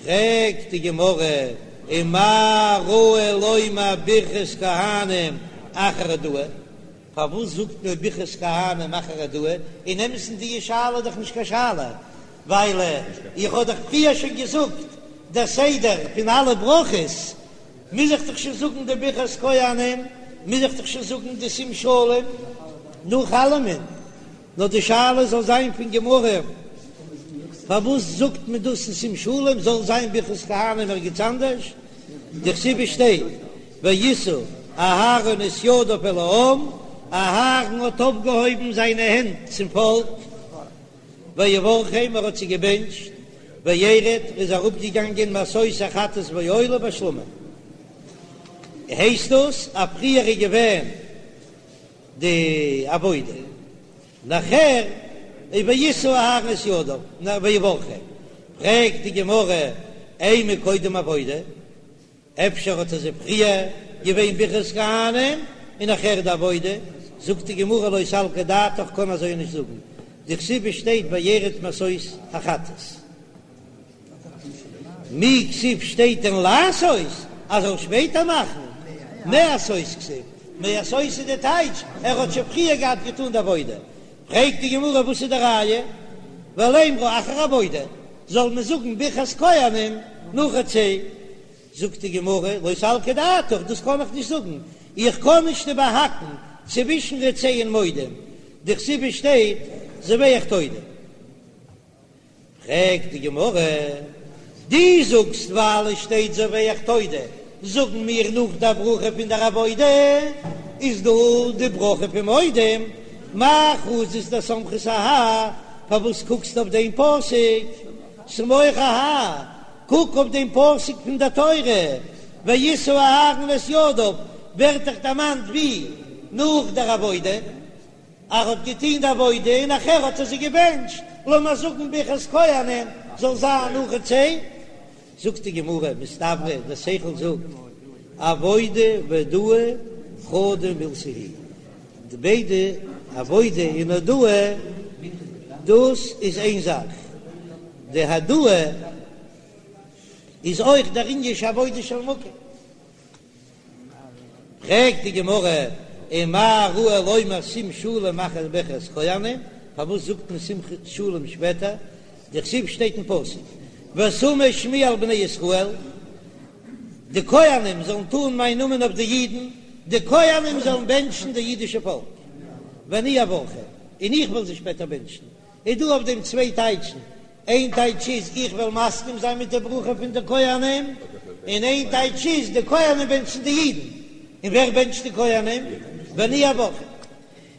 פרעגט די גמרא, ומה ראו לומר ברכת כהנים אחר הודאה? פארוואס זאגט מען ברכת כהנים אחר הודאה? אין אמת'ן די שאלה איז דאך נישט קיין שאלה, ווייל איך האב דאך פריער שוין געזאגט דער סדר פון אלע ברכות, מוז איך דאך שוין זאגן די ברכת כהנים, מוז איך דאך שוין זאגן די שים שלום נאך אלעמען. נאר די שאלה זאל זיין פון גמרא, פארוואס זאגט מען דאס אין שים שלום, זאל זיין ברכת כהנים ערגעץ אנדערש, דכתיב שטייט וישא אהרן את ידיו אל העם, אהרן האט אויפגעהויבן זיינע הענט צום פאלק, ויברכם, ער האט זיי געבענטשט, וירד, ער איז אראפגעגאנגען מעשות החטאת והעולה והשלמים, הייסט דאס אז פריער איז געווען די עבודה נאכער איז וישא אהרן את ידיו ויברכם, פרעגט די גמרא אימא קודם עבודה, אפשר האט עס פריער געווען ברכת כהנים און נאכער די עבודה, זאגט די גמרא לא סלקא דעתך קען אזוי נישט זאגן, דכתיב שטייט וירד מעשות החטאת. מי כתיב שטייט דען לעשות אז ער זאל שפעטער מאכן? מעשות כתיב, מעשות איז די טייטש ער האט שוין פריער געהאט געטאן די עבודה. פרעגט די גמרא וואס איז די ראיה? ולימרה אחר עבודה, זאל מען זאגן ברכת כהנים נאך רצה? זאגט די גמרא לא סלקא דעתך, דאס קען איך נישט זאגן, איך קען נישט איבערהאקן צווישן רצה און מודים, דכתיב שטייט זובח תודה. פרעגט די גמרא, דו זאגסט ווייל עס שטייט זובח תודה, זאגן מיר נאך די ברכה פון דער עבודה איז דא די ברכה פון מודים, מאי חזית דסמכת אהאי, פארוואס קוקסטו אויף דעם פסוק סמוך אהאי, קוק אויף דעם פסוק פון דער תורה, וישא אהרן את ידיו, ווערט דאך דערמאנט ווי נאך דער עבודה. ער האט געטוהן די עבודה און נאכער האט ער זיי געבענטשט, לאמיר זאגן ברכת כהנים זאל זיין נאך רצה, זאגט די גמרא, מסתברא דער שכל זאגט, עבודה והודאה חדא מילתא היא, די ביידע עבודה און הודאה דאס איז איין זאך, די הודאה איז אויך דער ענין של עבודה של מקום. פרעגט די גמרא, ומה ראו לומר שים שלום אחר ברכת כהנים, פארוואס זאגט מען שים שלום שפעטער, דכתיב שטייט אין פסוק ושמו שמי על בני ישראל, די כהנים זאלן טאן מיין נאמען אויף די אידן, די כהנים זאלן בענטשן די אידישע פאלק, ואני אברכם, און איך וועל זיי שפעטער בענטשן, איז דא אויף דעם צוויי טייטשן, איין טייטש איז איך וועל מסכים זיין מיט די ברכה פון די כהנים, און איין טייטש איז די כהנים בענטשן די אידן, און ווער בענטשט די כהנים? ואני אברכם.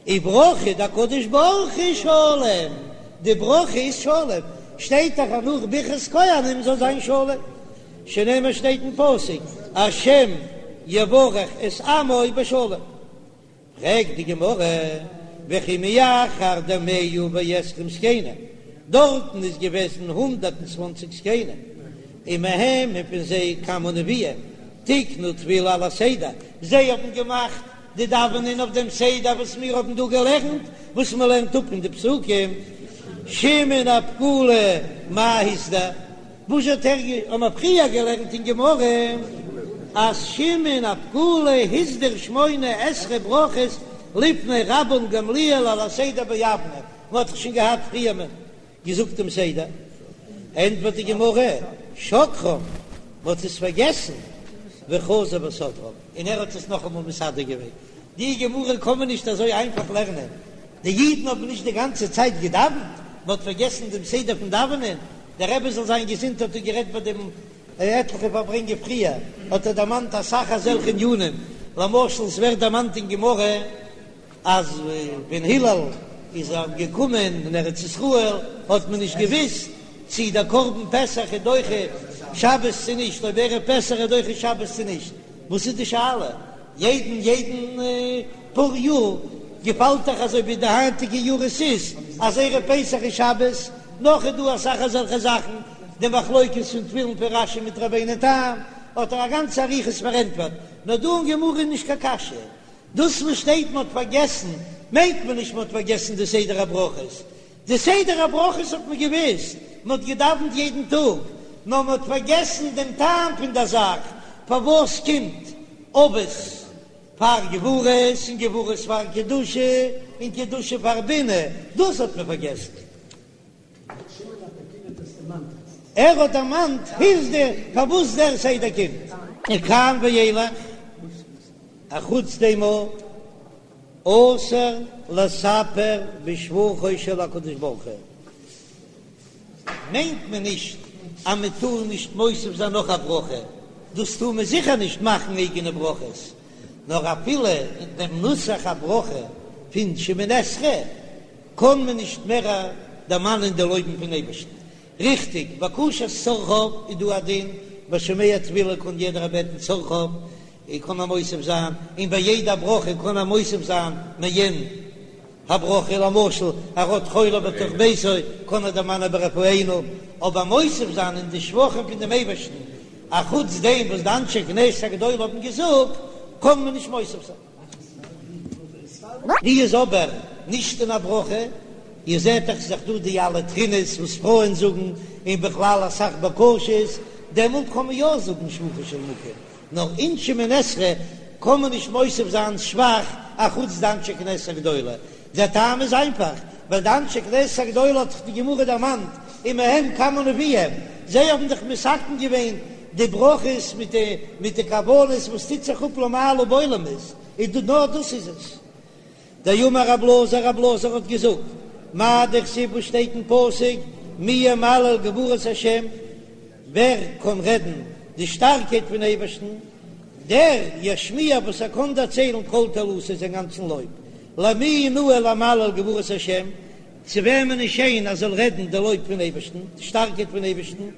וברכה דהקדוש ברוך הוא שלום, די ברכה איז שלום, שטייט דאך אז נאך ברכת כהנים זאל זיין שלום, שנאמר שטייט אין פסוק השם יברך את עמו בשלום. פרעגט די גמרא, וכי מאחר דמאה ועשרים זקנים, דארטן איז געוועזן 120 זקנים, ומהם און פון זיי כמה נביאים, תיקנו תפילה על הסדר, זיי האבן געמאכט די דאווענען אויף דעם סדר וואס מיר האבן דא געלערנט, וואס מען לערנט אפ אין די פסוקים, שמעון הפקולי מאי הסדיר. וואס האט ער האבן מיר פריער געלערנט אין גמרא אז שמעון הפקולי הסדיר שמונה עשרה ברכות לפני רבן גמליאל על הסדר ביבנה, מען האט דאך שוין געהאט פריער מען געזאגט דעם סדר, ענטפערט די גמרא שכחום, מען האט עס פארגעסן, וחזר וסדרם, און ער האט עס נאכאמאל מסדר געווען, די גמרא קען מען נישט אזוי איינפאך לערנען, די אידן האבן נישט די גאנצע צייט געדאווענט, מען האט פארגעסן דעם סדר פון דאווענען, דער רבי זאל זיין געזונט האט דא גערעדט ביי דעם עטליכע פארברענגען פריער, האט ער דערמאנט אסאך אזעלכע ענינים, למשל עס ווערט דערמאנט אין גמרא אז ווען הלל איז געקומען אין ארץ ישראל האט מען נישט געוויסט צי דער קרבן פסח איז דוחה שבת צו נישט, אויב ערב פסח איז דוחה שבת צו נישט, וואס איז די שאלה? יעדן יעדן פאר יאר געפאלט דאך אזוי ווי די היינטיגע יאר עס איז אז ערב פסח איז שבת, נאך איז דא אסאך אזעלכע זאכן, די מחלוקת פון תפילין פון רש"י מיט רבינו תם האט ער א גאנצע אריכות פארענטפערט, נאר דא אין גמרא איז נישט קיין קשיא, דאס וואס שטייט מען האט פארגעסן מיינט מען נישט מען האט פארגעסן די סדר הברכות, די סדר הברכות האט מען געוויסט, מען האט געדאווענט יעדן טאג. נאר מען האט פארגעסן דעם טעם פון דער זאך, פארוואס קומט אבות פאר גבורות און גבורות פאר קדושה און קדושה פאר בינה, דאס האט מען פארגעסן. ער האט דערמאנט הסדיר פארוואס דער סדר קומט. מכאן ואילך, אחוץ דעם אסור לספר בשבחו של הקדוש ברוך הוא, מיינט מען נישט אז מען טאר נישט מוסיף זיין נאך א ברכה, דאס טאר מען זיכער נישט מאכן אייגענע ברכות, נאר אפילו אין דעם נוסח הברכה פון שמונה עשרה קען מען נישט מער דערמאנען די לויבן פון אייבערשטן. ריכטיג, בקשת צרכיו איז דא א דין, ביי שומע תפילה קען יעדער בעטן צרכיו, און קען ער מוסיף זיין, און ביי יעדע ברכה קען ער מוסיף זיין מעין הברכה, למשל ער האט חולה בתוך ביתו קען ער דערמאנען ברפאנו, אבער מוסיף זיין אין די שבחים פון דעם אייבערשטן, אחוץ דעם וואס די אנשי כנסת הגדולה האבן געזאגט, קען מען נישט מוסיף זיין. ווי איז אבער נישט אין א ברכה, איר זעט דאך ס'איז דאך דא די אלע תחינות וואס פרויען זאגן, און בכלל אסאך בקשות, דעמאלט קען מען יא זאגן שבחו של מקום, נאר אין שמונה עשרה קען מען נישט מוסיף זיין שבח אחוץ די אנשי כנסת הגדולה, דער טעם איז איינפאך, ווייל די אנשי כנסת הגדולה האט דאך די גמרא דערמאנט ומהם כמה נביאים, זיי האבן דאך מתקן געווען די ברכות מיט די מיט די כוונות וואס טוט זיך אפ למעלה בעולמות, איז דא נאר דאס איז עס. דאמר רב אלעזר, רב אלעזר האט געזאגט, מאי דכתיב וואס שטייט אין פסוק, מי ימלל גבורות השם, ווער קען רעדן די שטארקייט פון אייבערשטן, דער ישמיע וואס ער קען דערציילן כל תהלתו זיין גאנצן לויב, למי נאה למלל גבורות השם, צו וועמען איז שיין אז זאל רעדן די לויב פון אייבערשטן, די שטארקייט פון אייבערשטן,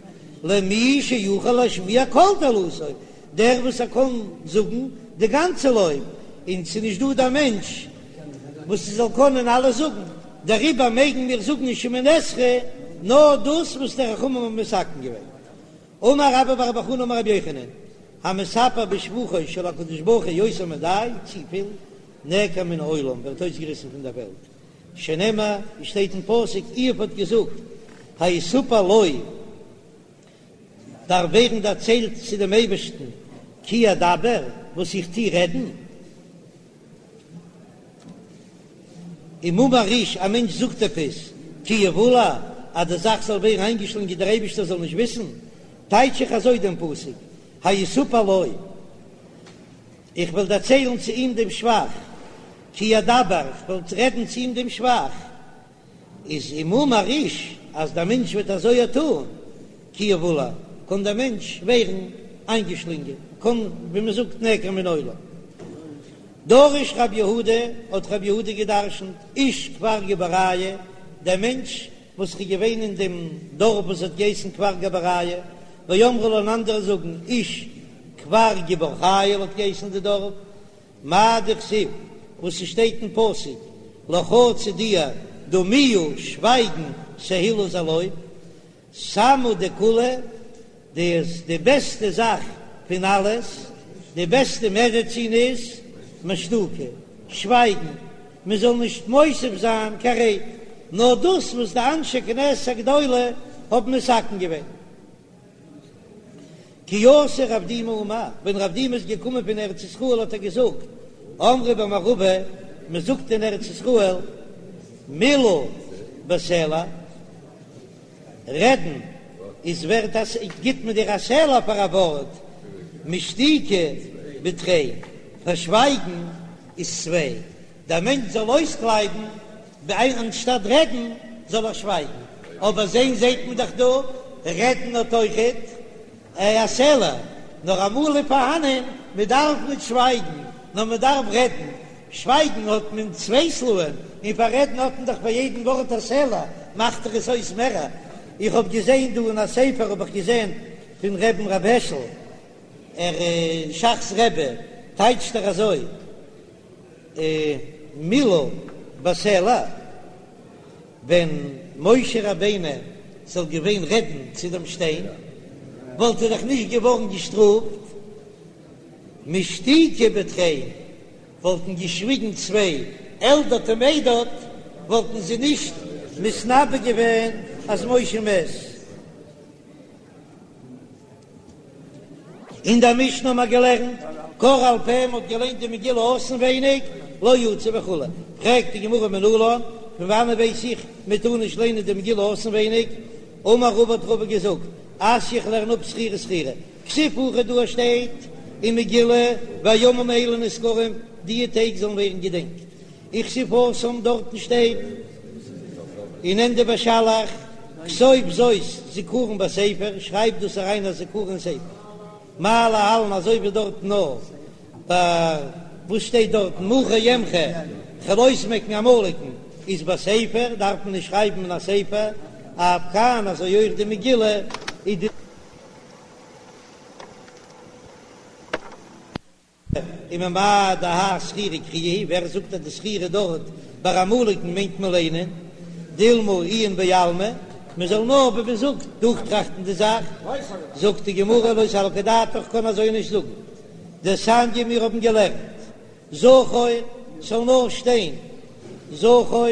למי שיכול להשמיע כל תהלתו, דער וואס ער קען זאגן די גאנצע לויב, און ס'איז נישט דא דער מענטש וואס ס'זאל קענען אלעס זאגן, דעריבער מעגן מיר זאגן אין שמונה עשרה נאר דאס וואס די חכמים האבן מתקן געווען. אמר רבה בר בר חנה אמר רבי יוחנן, המספר בשבחו של הקדוש ברוך הוא יותר מדאי, צופיל, נעקר מן העולם, ווערט אויסגעריסן פון דער וועלט, שנאמר, ווי שטייט אין פסוק, איוב האט געזאגט, היסופר לו, דארף ווערן דערציילט צו דעם אייבערשטן, כי אדבר, וואס איך טו רעדן. אם אמר איש, א מענטש זאגט עפעס, כי יבולע, אז די זאך זאל ווערן איינגעשלונגען דער אייבערשטער זאל נישט וויסן, טייטש איך אזוי דעם פסוק, היסופר לו, איך וועל דערציילן צו אים דעם שבח, כי אדבר, איך וועל רעדן צו אים דעם שבח. איז אם אמר איש אז דער מענטש וועט אזוי טאן, כי יבולע, קען דער מענטש ווערן איינגעשלינגען, קען ווי מען זאגט נעקר מן העולם. דרש רב יהודה, האט רב יהודה געדרשנט, איש כפר גבוריא, דער מענטש וואס איז געווען אין דעם דארף וואס האט געהייסן כפר גבוריא, ואמרי לה און אנדערע זאגן איש כפר גבור חיל האט געהייסן די דארף, מאי דכתיב, וואס ס'שטייט אין פסוק, לך צו דיר, דומיה, שווייגן, תהלה איז א לויב, סמא דכולא, דאס די בעסטע זאך פון אלעס, די בעסטע מעדעצין איז, משתוקי, שווייגן, מען זאל נישט מוסיף זיין קיין רייד, נאר דאס וואס די אנשי כנסת הגדולה האבן מתקן געווען. כי אתא רב דימי אמר, ווען רב דימי איז געקומען פון ארץ ישראל האט ער געזאגט, אמרי במערבא, מען זאגט אין ארץ ישראל, מילה בסלע, רעדן איז ווערט א, גיט מען דיר א סלע פאר א ווארט, משתוקי בתרין, פאר שווייגן איז צוויי. דער מענטש זאל אויסקלייבן, אנשטאט רעדן זאל ער שווייגן, אבער זען זעט מען דאך דא, רעדן האט אויכעט א סלע, נאר אמאל איז פארהאנען, מען דארף ניט שווייגן, נאר מען דארף רעדן, שווייגן האט מען צוויי סלעים, און פאר רעדן האט מען דאך פאר יעדן ווארט א סלע, מאכט דאך עס אויס מערער. איך האב געזען דא אין א ספר האב איך געזען פון רבי'ן ר' העשל, ער ש"ך'ס רבי, טייטשט ער אזוי, מילה בסלע, ווען משה רבינו זאל געווען רעדן צו דעם שטיין, וואלט ער דאך נישט געווארן געשטראפט, משתוקי בתרין, וואלטן געשוויגן צוויי, אלדד ומידד, וואלטן זיי נישט מתנבא געווען אז משה מת. אין דער משנה האבן מיר געלערנט קראה על פה, מ'האט געליינט די מגילה אויסנווייניג, לא יצא וכו'. פרעגט די גמרא מנלן, פון וואנען ווייס איך מ'טאר נישט ליינען די מגילה אויסנווייניג? אמר רבא האט רבא געזאגט, אתיא איך לערן אפ זכירה זכירה, כתיב הכא דא שטייט אין מגילה והימים האלה נזכרים, די טעג זאלן ווערן געדענקט, וכתיב התם דארטן שטייט אין ענדע בשלח כתוב זאת זכרון בספר, שרייב דאס אריין א זכרון אין ספר, מה להלן אזוי ווי דארטן נאר ביי וואס שטייט דארטן מחה אמחה כ'וועל אויסמעקן עמלקן איז בספר דארף מען נישט שרייבן אין א ספר, אף כאן אזוי אויך די מגילה איז די. וממאי דהאי זכירה קריאה היא, ווער זאגט אז די זכירה דארט ביי עמלקן מיינט מען ליינען, דילמא עיון בעלמא, מען זאל נאר ווי מען זאגט דורכטראכטן די זאך, זאגט די גמרא לא סלקא דעתך קען אזוי נישט זאגן, דתניא מיר האבן געלערנט זכור ס'זאל נאר שטיין זכור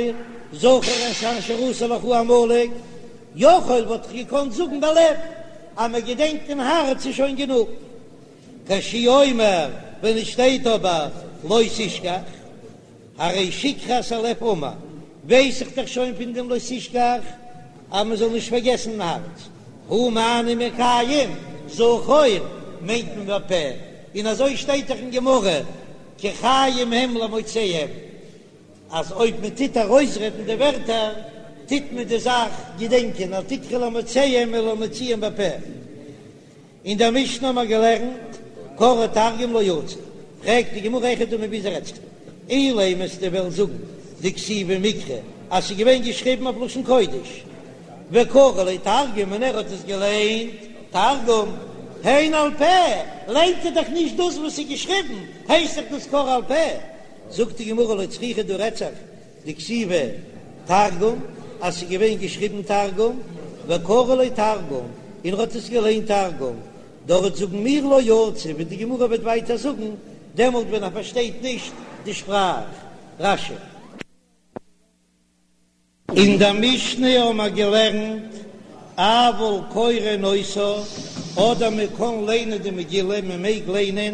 זכור את אשר עשה לך עמלק, יכול וואלט איך געקאנט זאגן בלב אז מען געדענקט אין הארץ איז שוין גענוג. כשהוא אומר, ווען עס שטייט אבער לא תשכח, הרי שכחת הלב אמור, ווייס איך דאך שוין פון דעם לא תשכח אז מען זאל נישט פארגעסן אין הארץ, הא מה אני מקיים, זכור מיינט מען בפה, און אזוי שטייט דאך אין גמרא, כי חיים הם למוציאם, אז אויב מען טוט ארויסרעדן די ווערטער, טוט מען די זאך געדענקען, אל תקרי למוציאם אלא למוציאם בפה. אין דער משנה האבן מיר געלערנט קראה תרגום לא יצא, פרעגט די גמרא היכי דמי ווי אזוי רעדט זיך דא, אילימא וועסטו וועלן זאגן דכתיבה מקרא אז ס'איז געווען געשריבן אויף לשון קודש, וקרי לה תרגום און ער האט עס געליינט תרגום, היינו על פה, ליינט ער דאך נישט דאס וואס איז געשריבן, הייסט דאך דאס קראה על פה, זאגט די גמרא לא צריכא דא רעדט זיך דכתיבה תרגום, אז ס'איז געווען געשריבן תרגום, וקרי לה תרגום, און ער האט עס געליינט תרגום, דארט זאגן מיר לא יצא, ווי די גמרא וועט ווייטער זאגן, דעמאלט ווען ער פארשטייט נישט די שפראך. רש"י. אין דער משנה האבן מיר געלערנט, אבל קורין אותה, אדער מען קען ליינען די מגילה, מען מעג ליינען,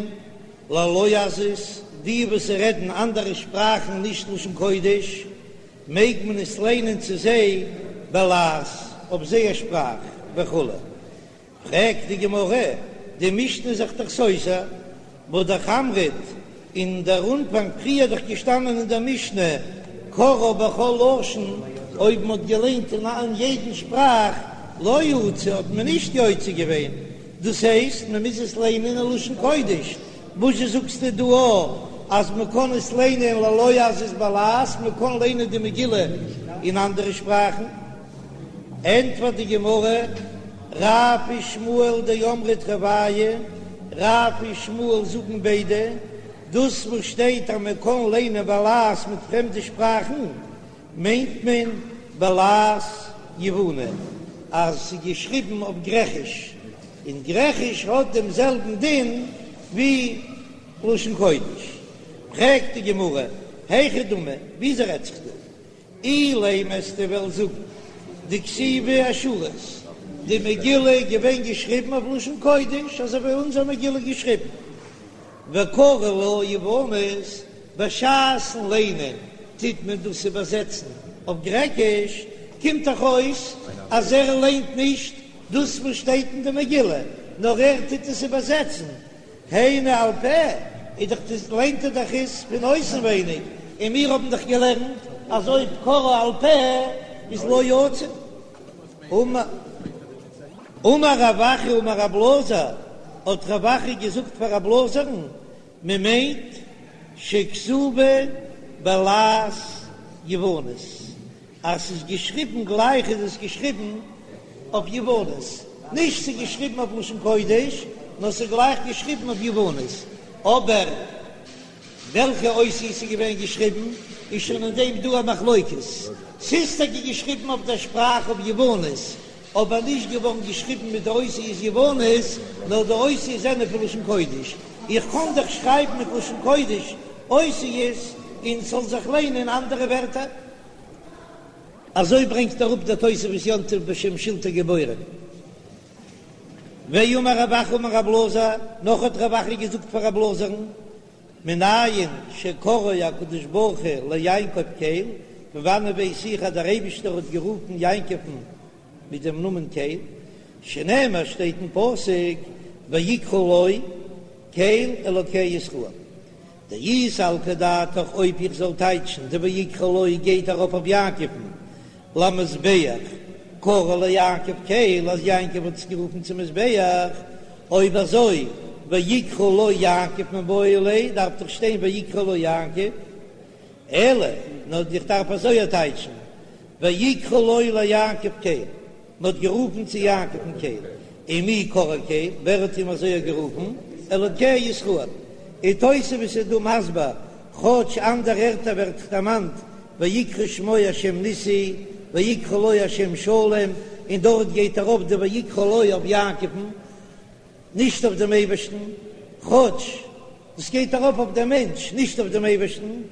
ללועזות, די וואס רעדן אנדערע שפראכן נישט לשון קודש, מעג מען עס ליינען צו זיי בלעז, אויף זייער שפראך, וכו'. פרעגט די גמרא, די משנה איז זיך דאך סותר, והא דאך אמרת, אין דער אנפאנג פריער דאך געשטאנען אין דער משנה קראה בכל לשון, אויב מען האט געליינט אין יעדן שפראך לא יצא האט מען נישט יוצא געווען, דאס הייסט מען מוז עס ליינען אין לשון קודש, וואזשע זאגסטו דא אז מען קען עס ליינען ללועזות בלעז, מען קען ליינען די מגילה אין אנדערע שפראכן? ענטפערט די גמרא, רב ושמואל דאמרי תרוייהו, רב און שמואל זאגן ביידע, דאס וואס שטייט אז מען קען ליינען בלעז מיט פרעמדע שפראכן, מיינט מען בלעז יווני, אז ס'איז געשריבן אויף גרעכיש, און גרעכיש האט דעם זעלבן דין ווי לשון קודש. פרעגט די גמרא, היכי דמי, וויאזוי רעדט זיך דא? אילימא וועסטו וועלן זאגן דכתיבה אשורית, די מגילה איז געווען געשריבן אויף לשון קודש אזוי ווי אונזער מגילה איז געשריבן, וקרי לה יוונית, בשעת'ן ליינען טוט מען דאס איבערזעצן אויף גרעקיש, קומט דאך אויס אז ער ליינט נישט דאס וואס שטייט אין די מגילה, נאר ער טוט עס איבערזעצן, היינו על פה, איז דאך דאס ליינט ער דאך עס פון אויסנווייניג, און מיר האבן דאך געלערנט אז אויב קראה על פה איז לא יצא. אמר רב אחא אמר רב אלעזר, האט רב אחא געזאגט פאר רב אלעזר'ן, מען מיינט שכתובה בלעז יוונית, אז ס'איז געשריבן גלייך איז עס געשריבן אויף יוונית, נישט ס'איז געשריבן אויף לשון קודש, נאר ס'איז גלייך געשריבן אויף יוונית, אבער וועלכע אותיות ס'איז געווען געשריבן איז שוין אין דעם דא א מחלוקת, ס'איז טאקע געשריבן אויף דער שפראך אויף יוונית, אבער נישט געווארן געשריבן מיט די אותיות יוונית, נאר די אותיות זענען פון לשון קודש, איך קען דאך שרייבן מיט לשון קודש אותיות און ס'זאל זיך ליינען אנדערע ווערטער. אזוי ברענגט אראפ דער תוספות יום טוב בשם שלטי גבורים. ואמר רב אחא אמר רב אלעזר, נאך האט רב אחא געזאגט פאר רב אלעזר'ן, מנין שקראו הקדוש ברוך הוא ליעקב קל, פון וואנען ווייס איך אז דער אייבישטער האט גערופן יעקב'ן מיט דעם נאמען קל, שנאמר שטייט אין פסוק ויקרא לו קל אלוקי ישראל. דאי סלקא דעתך אויב איך זאל טייטשן די ויקרא לו גייט ארויף אויף יעקב'ן למזבח קרא ליעקב קל אז יעקב האט עס גערופן צום מזבח, אויב אזוי ויקרא לו יעקב מיבעי ליה דארף דאך שטיין ויקרא לו יעקב, אלא נאר איך דארף אזוי טייטשן ויקרא לו ליעקב קל. מען האט גערופן צו יעקב'ן קל, ומי קראו קל, ווער האט אים אזוי גערופן? אלוקי ישראל. און תוספות איז דא מסביר, כאטש אנדערע ערטער ווערט דערמאנט ויקרא שמו השם ניסי, ויקרא לו השם שלום, און דארט גייט ארויף די ויקרא לו אויף יעקב'ן, נישט אויף דעם אייבערשטן, כאטש דאס גייט ארויף אויף דעם מענטש, נישט אויף דעם אייבערשטן,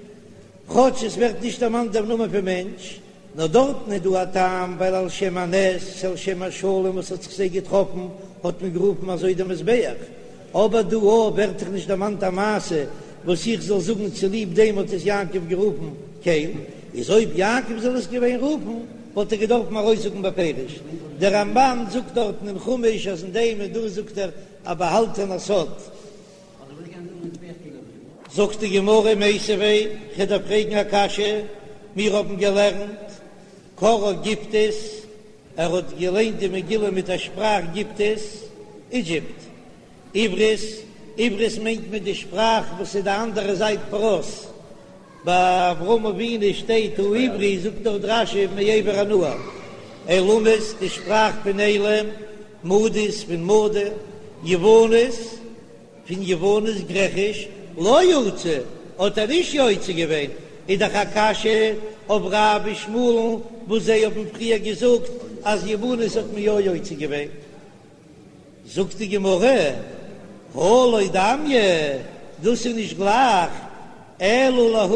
כאטש עס ווערט נישט דערמאנט דער נאמען פון מענטש, נאר דארטן איז דא א טעם, ווייל על שם הנס, על שם השלום וואס האט זיך זיי געטראפן, האט מען גערופן אזוי דעם מזבח. אבער דא ווערט דאך נישט דערמאנט א מעשה וואס איך זאל זאגן צוליב דעם האט עס יעקב גערופן קל, איז אויב יעקב זאל עס געווען רופן וואלט ער געדארפן ארויסזאגן בפירוש. דער רמב"ן זאגט דארטן אין חומש אז אין דעם איז דא זאגט ער א באהאלטענע סוד. זאגט די גמרא מיתיבי, כ'דארף פרעגן א קשיא, מיר האבן געלערנט קראה גיפטית, ער האט געליינט די מגילה מיט א שפראך גיפטית, אידזשיפט, עברית, עברית מיינט מען די שפראך וואס איז די אנדערע זייט פרת, ביי אברהם אבינו שטייט העברי זאגט דארט רש"י מעבר הנהר, עילמית די שפראך פון עילם, מדית פון מדי, יוונית פון יוונית גרעכיש, לא יצא האט ער נישט יוצא געווען, איז דאך א קשיא אויף רב ושמואל'ן וואס זיי האבן פריער געזאגט אז יוונית האט מען יא יוצא געווען. זאגט די גמרא, הא לא דמיא, דאס איז נישט גלייך, אלא להא,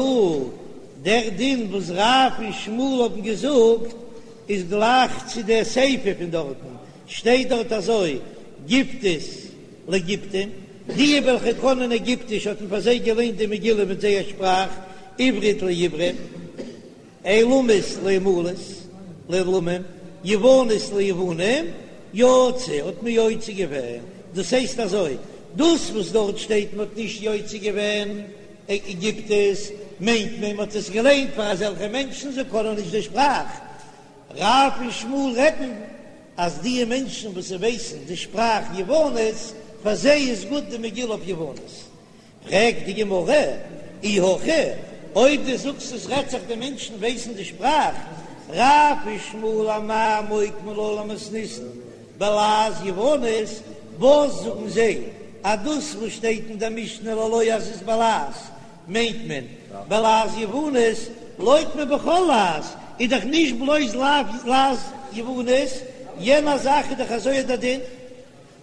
דער דין וואס רב און שמואל האבן געזאגט איז גלייך צו דער סיפא פון דארטן, שטייט דארט אזוי, גיפטית לגיפטים, די וועלכע קענען עגיפטיש האט מען פאר זיי געליינט די מגילה מיט זייער שפראך, עברית לעברים. עילמית לעמלית, לעילמים, יוונית ליוונים, יצא האט מען יוצא געווען, דאס הייסט אזוי, דאס וואס דארט שטייט מען האט נישט יוצא געווען גיפטית, מיינט מען מען האט עס געליינט פאר אזעלכע מענטשן זיי קענען נישט די שפראך, רב און שמואל רעדן אז די מענטשן וואס ווייסן די שפראך יוונית, פאר זיי איז גוט די מגילה אויף יוונית. פרעגט די גמרא, אי הכי, אויב דו זאגסט עס רעדט זיך די מענטשן ווייסן די שפראך, רב ושמואל אמאי מוקמי לה למתניתין בלעז יוונית, וואס זאגן זיי אז דאס וואס שטייט אין די משנה ללועזות בלעז מיינט מען בלעז יוונית, לוקמה בכל לעז איז דאך נישט בלויז לעז יוונית, יענע זאך איז דאך אזוי דער דין.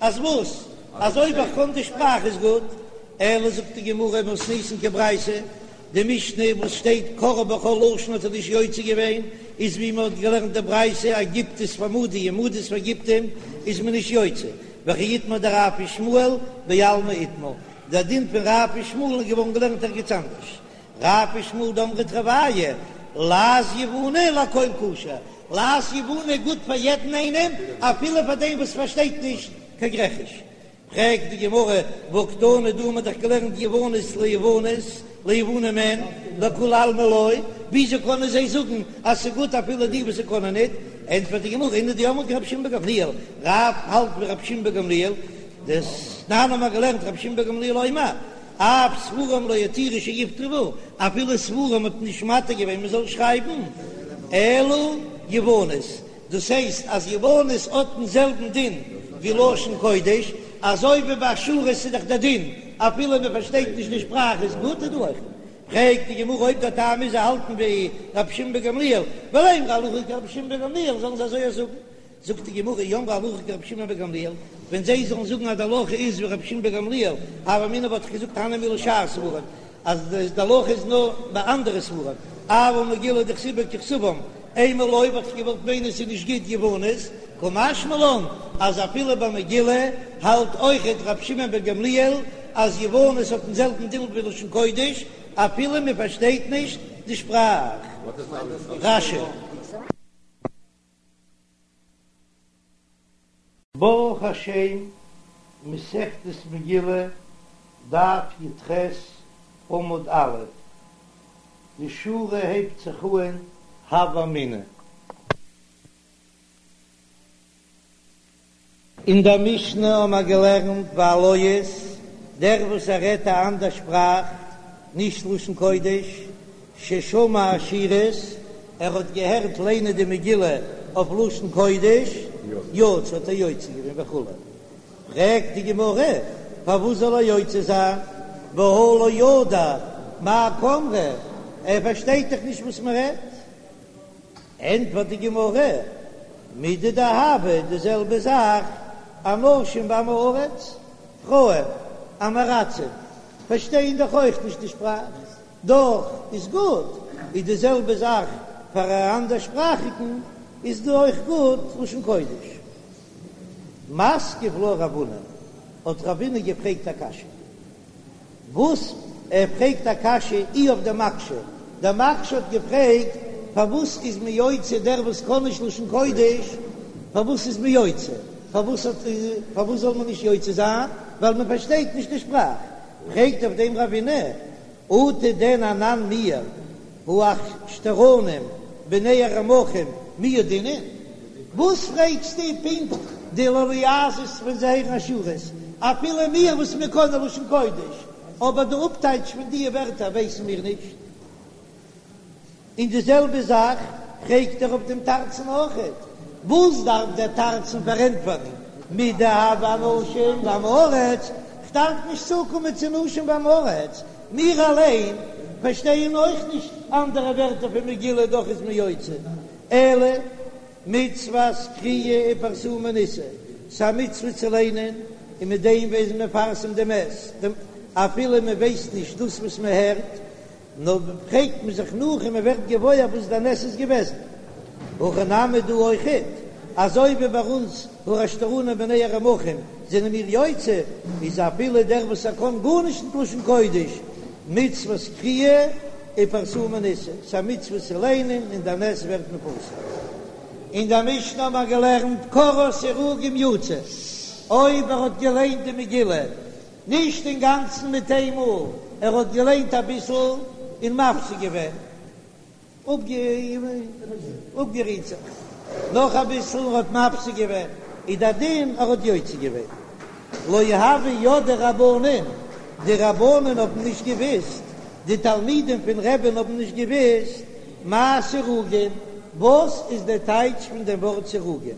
אז וואס? אז אויב איך קען די שפראך איז גוט? אלא זאגט די גמרא מתניתין כברייתא, די משנה וואס שטייט קראה בכל לשון האט ער נישט יוצא געווען, איז ווי מען האט געלערנט די ברייתא אז גיפטית פאר מדי און מדית פאר גיפטים איז מען נישט יוצא, וכי איתמר דרב ושמואל בעלמא איתמר, דער דין פון רב ושמואל איז געווארן געלערנט ערגעץ אנדערש. רב ושמואל דאמרי תרוייהו, לעז יווני לכל כשר, לעז יווני גוט פאר יעדן איינעם, אפילו פאר דעם וואס פארשטייט נישט קיין גרעכיש. פרעגט די גמרא, והא קתני דא האט מען דאך געלערנט יוונית ליוונית, ליוונים אין, לכולי עלמא לא, וויאזוי קענען זיי זאגן אז ס'גוט אפילו די וואס קענען ניט? ענטפערט די גמרא, נינהו דאמרי כרבי שמעון בן גמליאל, רב האלט ווי רבי שמעון בן גמליאל, דתנן האבן מיר געלערנט רבי שמעון בן גמליאל אומר, אף ספרים לא התירו שיכתבו, אפילו ספרים האט מען נישט מתיר געווען מען זאל שרייבן, אלא יוונית, דאס הייסט אז יוונית האט דעם זעלבן דין ווי לשון קודש, אזוי ווי ביי אשורית איז דאך דער דין אפילו מען פארשטייט נישט די שפראך איז גוט איז דא אויך. פרעגט די גמרא אויב דער טעם איז זיי האלטן ווי רבי שמעון בן גמליאל, ולימרו הלכה כרבי שמעון בן גמליאל זאלן זיי אזוי זאגן, זאגט די גמרא אי אמרי הלכה כרבי שמעון בן גמליאל, ווען זיי זאלן זאגן אז די הלכה איז ווי רבי שמעון בן גמליאל, הוה אמינא וואלט איך געזאגט הני מילי שאר ספרים, אז די הלכה איז נאר ביי אנדערע ספרים, אבל מגילה דכתיב בה ככתבם, אימא לא וואלט איך געוואלט מיינען ס'איז נישט גוט יוונית, קא משמע לן. אז אפילו ביי מגילה האלט אויכעט רבי שמעון בן גמליאל אז יוונית האט דעם זעלבן דין ווי לשון קודש אפילו מען פארשטייט נישט די שפראך. רש"י. ברוך השם, מסכת מגילה, דף י"ח, עמוד א', די שורה הייבט זיך אהן הוה אמינא. אין דער משנה האבן מיר געלערנט והלועז, דער וואס ער רעדט א אנדער שפראך, נישט לשון קודש, ששמע אשורית, ער האט געהערט ליינען די מגילה אויף לשון קודש, יצא האט ער יוצא געווען וכו'. פרעגט די גמרא, פארוואס זאל ער יוצא זיין, והא לא ידע מאי קאמרי, ער פארשטייט דאך נישט וואס מען רעדט. ענטפערט די גמרא, מידי דהוה, די זעלבע זאך, אנשים ועמי הארץ, פרויען, עם הארצים, פארשטייען דאך אויך נישט די שפראך, דאך איז גוט, איז די זעלבע זאך פאר א אנדערשפראכיגן איז דא אויך גוט לשון קודש. מתקיף לה רב הונא, האט רב הונא געפרעגט א קשיא. וואס? ער פרעגט א קשיא אי אויף דער מקשה, דער מקשה האט געפרעגט פארוואס איז מען יוצא דער וואס קען נישט לשון קודש, פארוואס איז מען יוצא, פארוואס האט פארוואס זאל מען נישט יוצא זיין, ווייל מען פארשטייט נישט די שפראך, פרעגט אויף דעם רב הונא, אטו דען אנן מיר האחשתרנים בני הרמכים מי ידעינן? וואס פרעגסטו פונקט די לועזות ווען זיי הערן אשורית? אפילו מיר וואס מיר קענען לשון קודש, אבער די אפטייטש פון די ווערטער ווייסן מיר נישט. און די זעלבע זאך פרעגט ער אויף דעם תרצן אויכעט, וואס דארף דער תרצן פארענטפערן מידי דהוה אנשים ועמי הארץ, כ'דארף נישט צוקומען צו נשים ועמי הארץ, מיר אליין פארשטייען אויך נישט אנדערע ווערטער פון מגילה דאך איז מען יוצא, אלא מצוות קריאה ופרסומי ניסא, ס'א מצוה צו ליינען און מיט דעם איז מען מפרסם דעם נס, אפילו מען ווייסט נישט דאס וואס מען הערט, נאר פרעגט מען זיך נאך און מען ווערט געוואויר וואס דער נס איז געוועזן. הכא נמי דא אויכעט, אזוי ווי ביי אונז האחשתרנים בני הרמכים זענען מיר יוצא, איז אפילו דער וואס ער קען גארנישט ניט לשון קודש, מצוות קריאה ופרסומי ניסא, ס'א מצוה צו ליינען און דער נס ווערט מפורסם. אין דער משנה האבן מיר געלערנט קראה סירוגין יצא, אויב ער האט געליינט די מגילה נישט אינגאנצן מיט איין מאל, ער האט געליינט אביסל און מפסיק געווען, אפגערוהט זיך, נאך אביסל און האט מפסיק געווען, איז דער דין ער האט יוצא געווען. לא הוו ידעי רבנן, די רבנן האבן נישט געוויסט, די תלמידים פון רבי'ן האבן נישט געוויסט, מאי סירוגין, וואס איז דער טייטש פון דעם ווארט סירוגין?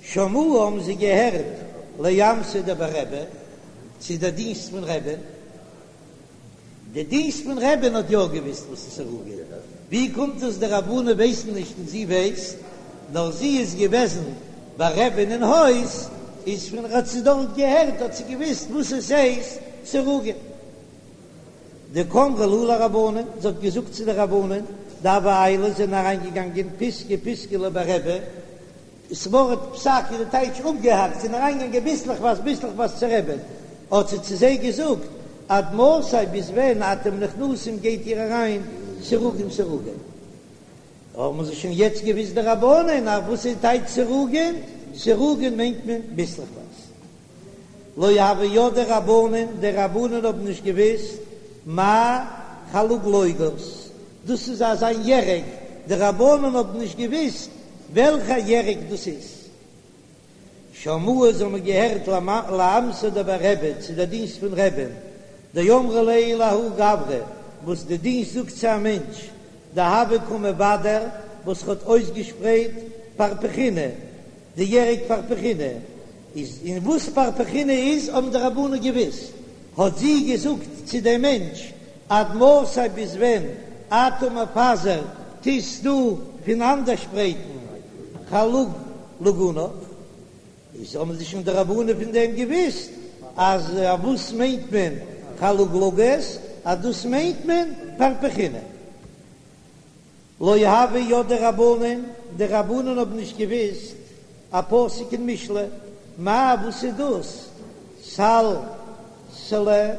שמעוה האבן זיי געהערט לאמתא דבי רבי, צו דער דינסט פון רבי'ן. די דינסט פון רבי'ן האט יא געוויסט וואס איז סירוגין. ווי קומט עס די רבנן ווייסן נישט און זי ווייסט? נאר זי איז געוועזן ביי רבי'ן אין הויז, איז פון האט זי דארט געהערט האט זי געוויסט וואס עס הייסט סירוגין. דקאמרה להו לרבנן, זי האט געזאגט צו די רבנן, דהוו עיילי זענען אריינגעגאנגען פיסקא פיסקא לבי רבי, ס'ווארט פסק איז די טייטש אפגעהאקט, זענען אריינגעגאנגען ביסלעכווייז ביסלעכווייז צו רבי'ן, האט זי צו זיי געזאגט, עד מתי ביז ווען אתם נכנסים גייט איר אריין סירוגין סירוגין? האבן זיי שוין יעצט געוויסט די רבנן אז וואס איז טייטש סירוגין? סירוגין מיינט מען ביסלעכווייז. לא הוו ידעי רבנן, די רבנן האבן נישט געוויסט מאי חלוגלוגות, דאס איז אזא ירק, די רבנן האבן נישט געוויסט וועלכע ירק דאס איז. שמעוה זיי האבן געהערט לאמתא דבי רבי צו דער דינסט פון רבי'ן, דאמרה ליה לההוא גברא, וואס די דינסט זאגט צו א מענטש, דהוה קא מבדר, וואס האט אויסגעשפרייט פרפחינא, די ירק פרפחינא איז, און וואס פרפחינא איז האבן די רבנן געוויסט, האט זי געזאגט צו דעם מענטש, עד מתי ביז ווען אתה מפזר טוסט דו פונאנדערשפרייטן חלוגלוגונך, איז האבן זיי שוין די רבנן פון דעם געוויסט אז וואס מיינט מען חלוגלוגות, אז דאס מיינט מען פרפחינא. לא הוו ידעי רבנן, די רבנן האבן נישט געוויסט. א פסוק אין משלי, מאי וואס איז דאס סלסלה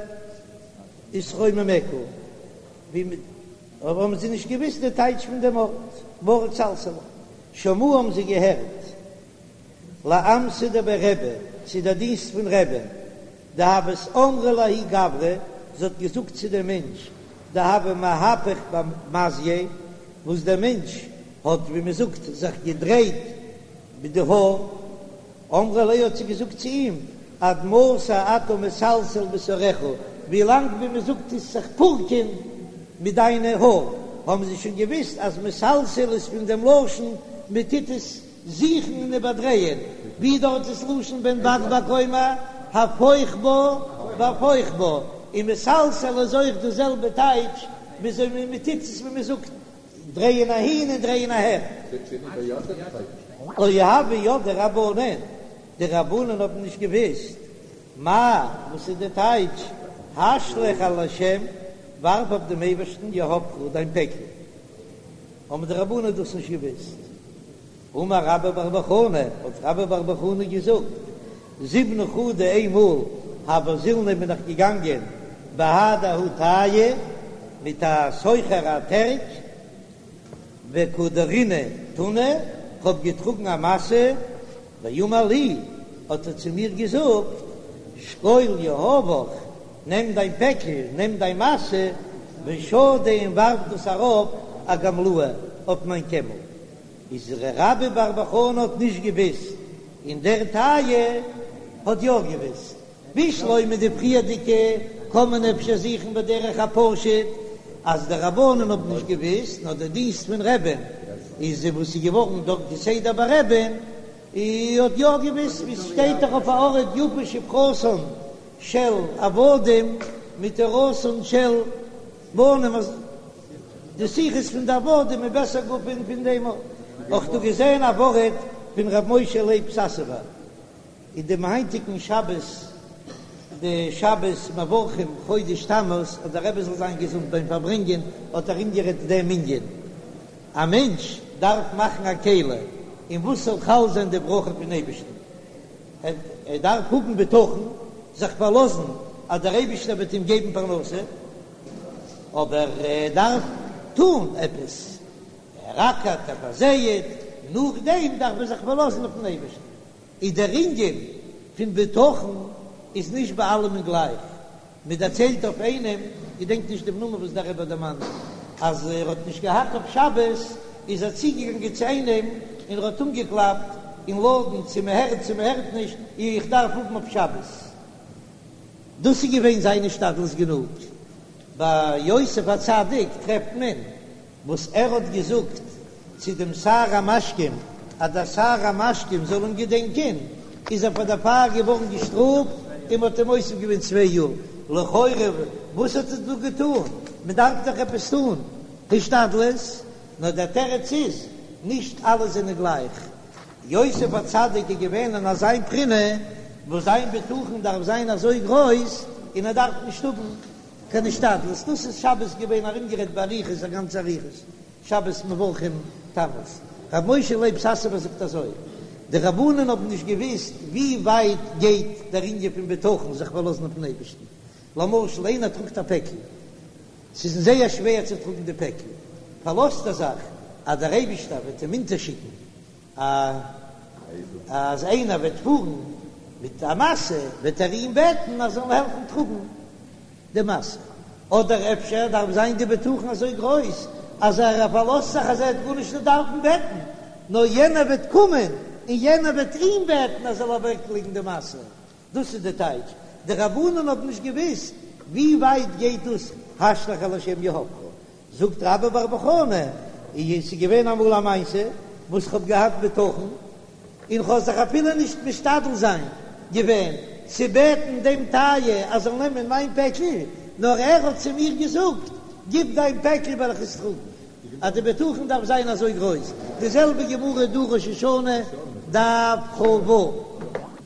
ותרוממך, ווי אבער האבן זיי נישט געוויסט די טייטש פון דעם ווארט, ווארט סלסלה, שמעו האבן זיי געהערט לאמתא דבי רבי, צו דער דינסט פון רבי'ן, דהוות אמרה לההוא גברא, זי האט געזאגט צו דעם מענטש, דהוה מהפך במזייה, וואס דער מענטש האט, ווי מען זאגט, זיך געדרייט מיט די האר, אמרה ליה האט זי געזאגט צו אים, עד מתי אתה מסלסל בשערך, ווי לאנג ווי מען זאגט טוסט זיך פורקען מיט דיינע האר, האבן זיי שוין געוויסט אז מסלסל איז פון דעם לשון מען טוט עס זוכן און איבערדרייען, ווי דארט איז לשון בן בג בג אומר הפוך בה והפוך בה, און מסלסל איז אויך די זעלבע טייטש, וויאזוי מען טוט עס ווי מען זאגט דרייען אהין און דרייען אהער. לא הוו ידעי רבנן, די רבנן האבן נישט געוואוסט מאי, וואס איז די טייטש השלך על השם, ווארף אויף דעם אייבערשטן יהבך דיין פעקל, האבן די רבנן דאס נישט געוואוסט. אמר רבה בר בר חנה, האט רבה בר בר חנה געזאגט, זימנא חדא איינמאל הוה זילנא בין איך געגאנגען בהדי ההוא טייעא מיט א סוחר א טערק וקא דרינא טונא, כ'האב געטראגן א משא, ואמר לי, האט ער צו מיר געזאגט, שקול יהבך, נעם דיין פעקל, נעם דיין משא, ושדי און ווארף דאס ארויף אגמלאי אויף מיין קעמל. איז רבה בר בר חנה האט נישט געוויסט, און דער טייעא האט יא געוויסט. בשלמא די פריערדיגע קען מען אפשר זוכן בדרך הפשוט אז די רבנן האבן נישט געוויסט, נאר די דינסט פון רבי'ן איז וואס איז געווארן דארט כסדר ביי רבי'ן האט יא געוויסט, ווי ס'שטייט דאך אויף א ארט יפה שפחתן של עבדים מתורתן של בנים אז די שיחות פון די עבדים איז בעסער גאר פון פון דעם אויך דא געזען א ווארט פון ר' משה לייב סאסובער אין דעם היינטיגן שבת די שבת מברכים חודש תמוז אז דער רבי זאל זיין געזונט ביים פארברענגען האט ארומגערעדט דעם ענין א מענטש דארף מאכן א כלי אין וואס זאל חל זיין די ברכה פון אייבערשטן ער דארף האבן בטחון זיך פארלאזן אז דער אייבערשטער וועט אים געבן פרנסה. אבער ער דארף טון עפעס, ער אקערט, ער פארזייעט, נאכדעם דארף ער זיך פארלאזן אויפן אייבערשטן. איז דער ענין פון בטחון איז נישט ביי אלעמען גלייך. מען דערציילט אויף איינעם, געדענק נישט דעם נאמען וואס דער רבי האט דערמאנט, אז ער האט נישט געהאט אויף שבת, איז ער צוגעגאנגען צו איינעם און ער האט אנגעקלאפט אין לאדן צו מען הערט צו מען הערט נישט, איך דארף האבן אויף שבת. דאס איז געווען זיין השתדלות גענוג. ביי יוסף הצדיק טרעפט מען וואס ער האט געזאגט צו דעם שר המשקים אז דער שר המשקים זאל אים געדענקען, איז ער פאר דערפאר געווארן געשטראפט און מען האט אים מוסיף געווען צוויי יאר. לכאורה וואס האט ער דא געטאן? מען דארף דאך עפעס טאן השתדלות. נאר דער תירוץ איז, נישט אלע זענען גלייך. יוסף הצדיק איז געווען אין אזיין בחינה וואס זיין בטחון דארף זיין אזוי גרויס און ער דארף נישט האבן קיין השתדלות, דאס איז שבת געווען ארומגערעדט באריכות א גאנצע אריכות, שבת מברכים תמוז. רבי משה לייב סאסובער זאגט אזוי, די רבנן האבן נישט געוואוסט ווי ווייט גייט דער ענין פון בטחון זיך פארלאזן אויפן אייבערשטן, למשל איינער טראגט א פעקל, ס'איז אים זייער שווער צו טראגן די פעקל, פארלאזט ער זיך אז דער אייבישטער וועט אים אונטערשיקן א אז איינער וועט פארן מיט א משא וועט ער אים בעטן אז ער זאל העלפן טראגן די משא, אדער אפשר דארף זיין די בטחון אזוי גרויס אז ער פארלאזט זיך אז ער וועט גארנישט נישט דארפן בעטן, נאר יענער וועט קומען און יענער וועט אים בעטן אז ער זאל אוועקלייגן די משא. דאס איז די טייטש, די רבנן האבן נישט געוואוסט ווי ווייט גייט דאס השלך על השם יהבך, זאגט רבה בר בר חנה, און עס איז געווען אמאל א מעשה וואס כ'האב געהאט בטחון, און כ'האב זיך אפילו נישט משתדל זיין געווען צו בעטן דעם טייעא אז זאל נעמען מיין פעקל, נאר ער האט צו מיר געזאגט, גיב דיין פעקל וועל איך עס טראגן. אז די בטחון דארף זיין אזוי גרויס, די זעלבע גמרא דא ראש השנה דף כ"ו.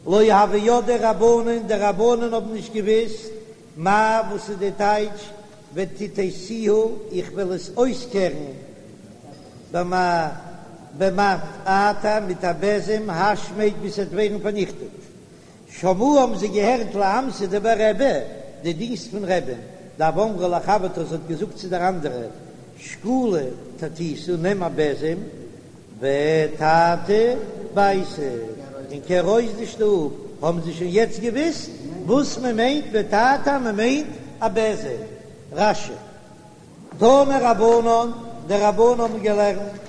לא הוו ידעי רבנן, די רבנן האבן נישט געוויסט מאי וואס איז די טייטש וטאטאתיה, איך וועל עס אויסקערן במעטפתא. במטעטע מיט א בעזעם השמד ביז ס'וועט ווערן פארניכטעט. שמעוה האבן זיי געהערט לאמתא דבי רבי, די דינסט פון רבי'ן, דהוה אמרה לחברתה זי האט געזאגט צו דער אנדערע, שקולי טאטיתא נעם א בעזעם וטאטי ביתא און קער אויס די שטוב, האבן זיי שוין יעצט געוויסט וואס מען מיינט מטאטא, מען מיינט א בעזעם. רש"י. תנו רבנן, די רבנן האבן געלערנט,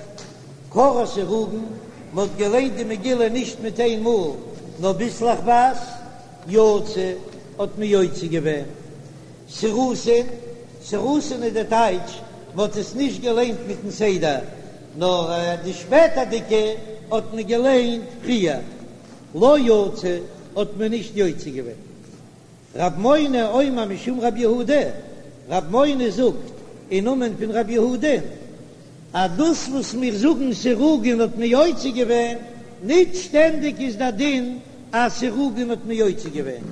קראה סירוגין, מען האט געליינט די מגילה נישט מיט איין מאל, נאר ביסלעכווייז, יצא, האט מען יוצא געווען. סירוסין, סירוסין איז די טייטש, מען האט עס נישט געליינט מיטן סדר, נאר די שפעטערדיגע האט מען געליינט פריער. לא יצא, האט מען נישט יוצא געווען. רב מונא אומר משום רב יהודה, רב מונא זאגט אין נאמען פון רב יהודה, אז דאס וואס מיר זאגן סירוגין האט מען יוצא געווען, ניט שטענדיג איז דער דין אז סירוגין האט מען יוצא געווען,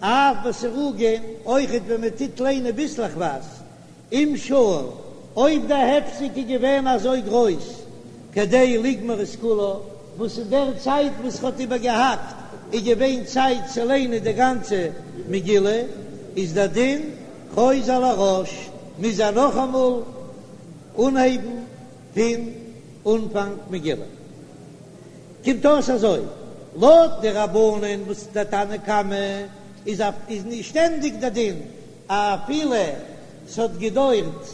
אף בסירוגין, אויכעט ווען מען טוט ליינען ביסלעכווייז, אם שהה, אויב די הפסק איז געווען אזוי גרויס כדי לגמור את כולה, וואס אין דער צייט וואס ער האט איבערגעהאקט איז געווען צייט צו ליינען די גאנצע מגילה, איז דער דין חוזר לראש, מוז ער נאכאמאל אנהייבן פון אנפאנג מגילה. קומט אויס אזוי, לויט די רבנן וואס דער תנא קמא איז איז נישט שטענדיג דער דין אפילו ס'האט געדוירט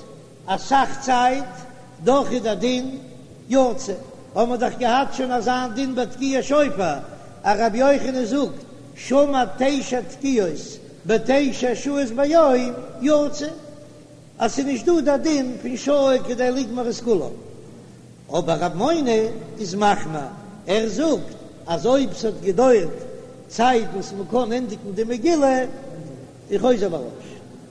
אסאך צייט, דאך איז דער דין יצא. האבן מיר דאך געהאט שוין אזא דין ביי תקיעת שופר, אז רבי יוחנן זאגט שמע תשע תקיעות בתשע שעות ביום יצא, אז ס'איז נישט דא דער דין פון שהה כדי לגמור את כולה. אבער רב מונא איז מחמיר, ער זאגט אז אויב ס'האט געדוירט צייט וואס מ'קען ענדיגן די מגילה, איז חוזר לראש.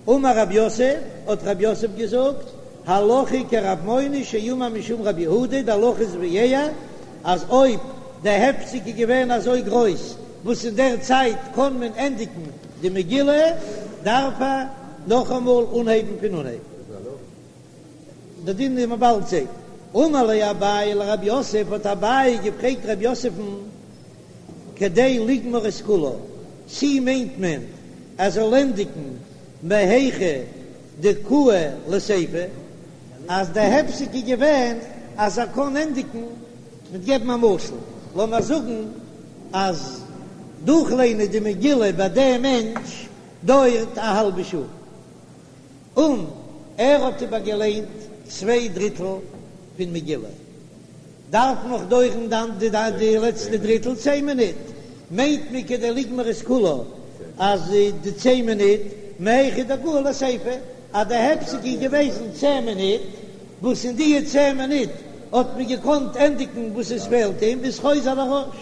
אמר רב יוסף, האט רב יוסף געזאגט, הלכה כרב מונא שאמר משום רב יהודה, די הלכה איז ווי ער, אז אויב די הפסק איז געווען אזוי גרויס וואס אין דער צייט קען מען ענדיגן די מגילה, דארף ער נאכאמאל אנהייבן פון אנהייב. די דין וועט מען באלד זען. אמר ליה אביי לרב יוסף, האט אביי געפרעגט רב יוסף'ן, כדי לגמור את כולה, צי מיינט מען ער זאל ענדיגן מהיכא דקאי לסיפא, אז די הפסק איז געווען אז ער קען ענדיגן, מיט געבן א משל, לאמיר זאגן אז דורכליינען די מגילה ביי דעם מענטש דויערט א האלבע שעה, און ער האט איבערגעליינט צוויי דריטל פון מגילה, דארף נאך דויערן דאן די די לעצטע דריטל צען מינוט, מיינט מען כדי לגמור את כולה אז די צען מינוט מהיכא דקאי לסיפא אז די הפסק איז געוועזן צען מינוט, וואס אין די צען מינוט האט מען געקאנט ענדיגן וואס עס פעלט אים איז חוזר לראש.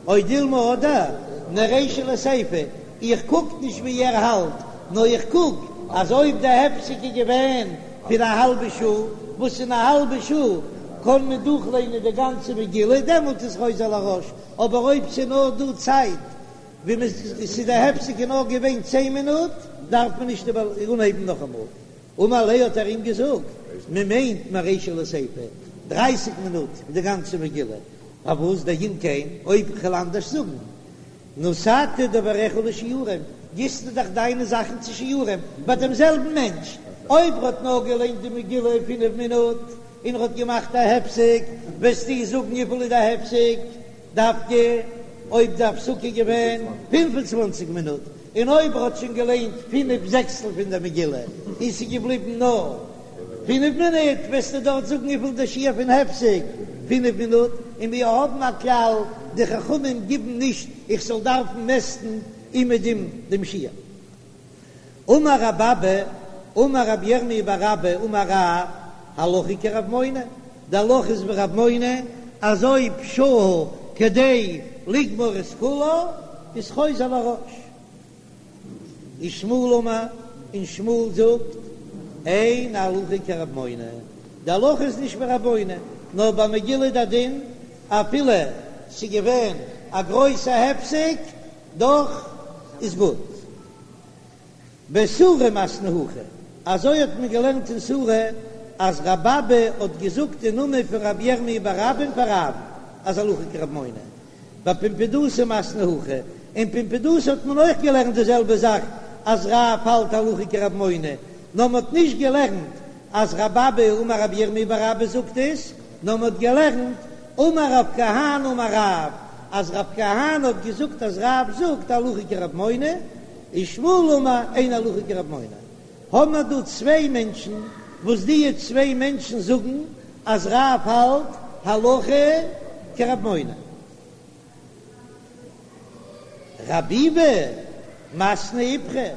או דילמא אדער מרישא לסיפא, איך קוק נישט ווי ער האלט, נאר איך קוק אז אויב די הפסק איז געווען פון א האלבע שעה, וואס אין א האלבע שעה קען מען דורכליינען די גאנצע מגילה, דעמאלט איז חוזר לראש, אבער אויב ס'איז נאר דא צייט ווי מען ס'איז די הפסק איז נאר געווען צען מינוט, דארף מען נישט אנהייבן נאכאמאל. אמר ליה האט ער אים געזאגט, מען מיינט מרישא לסיפא, דרייסיג מינוט די גאנצע מגילה, פארוואס דאם כן, אויב כ'וועל אנדערש זאגן, נתת דבריך לשיעורים, גיבסטו דאך דיינע זאכן צו שיעורים ביי דעם זעלבן מענטש, אויב ר'האט נאר געליינט די מגילה אין פינף מינוט און ר'האט געמאכט א הפסק, וועסטו זאגן וויפיל איז די הפסק דווקא אויב די הפסקה איז געווען פינף און צוואנציג מינוט, און אויב ער האט שוין געליינט פינף זעקסטל פון דער מגילה און ס'איז געבליבן נאר פינף מינוט, וועסטו דארט זאגן וויפיל דער שיעור פון הפסק, פינף מינוט, און מיר האבן א כלל, די חכמים גיבן נישט איך זאל דארפן מעסטן אומעדום דעם שיעור. אמר רב אבא, אמר רב ירמי' בר אבא אמר רב, הלכה כרב מונא, די הלכה איז ווי רב מונא, אז אויב שהה כדי לגמור את כולה איז חוזר לראש. ושמואל אמר, און שמואל זאגט, אין הלכה כרב מונא, די הלכה איז נישט ווי רב מונא, נאר ביי מגילה די דין אפילו ס'איז געווען א גרויסע הפסק, דאך איז גוט. בסורא מתנו הכי, אזוי האט מען געלערנט אין סורא. אז רב אבא האט געזאגט אין נאמען פון רבי ירמי' בר אבא'ן פאר רב'ן אז הלכה כרב מונא. בפומבדיתא מתנו הכי, אין פומבדיתא האט מען אויך געלערנט די זעלבע זאך אז רב האלט הלכה כרב מונא, נאר מען האט נישט געלערנט אז רב אבא אמר רבי ירמי' בר אבא זאגט עס, נאר מען האט געלערנט אמר רב כהנא אמר רב, אז רב כהנא האט געזאגט אז רב זאגט הלכה כרב מונא, ושמואל אמר אין הלכה כרב מונא. האבן מיר דא צוויי מענטשן וואס דיע צוויי מענטשן זאגן אז רב האלט הלכה כרב מונא. רב ביבי מתני איפכא,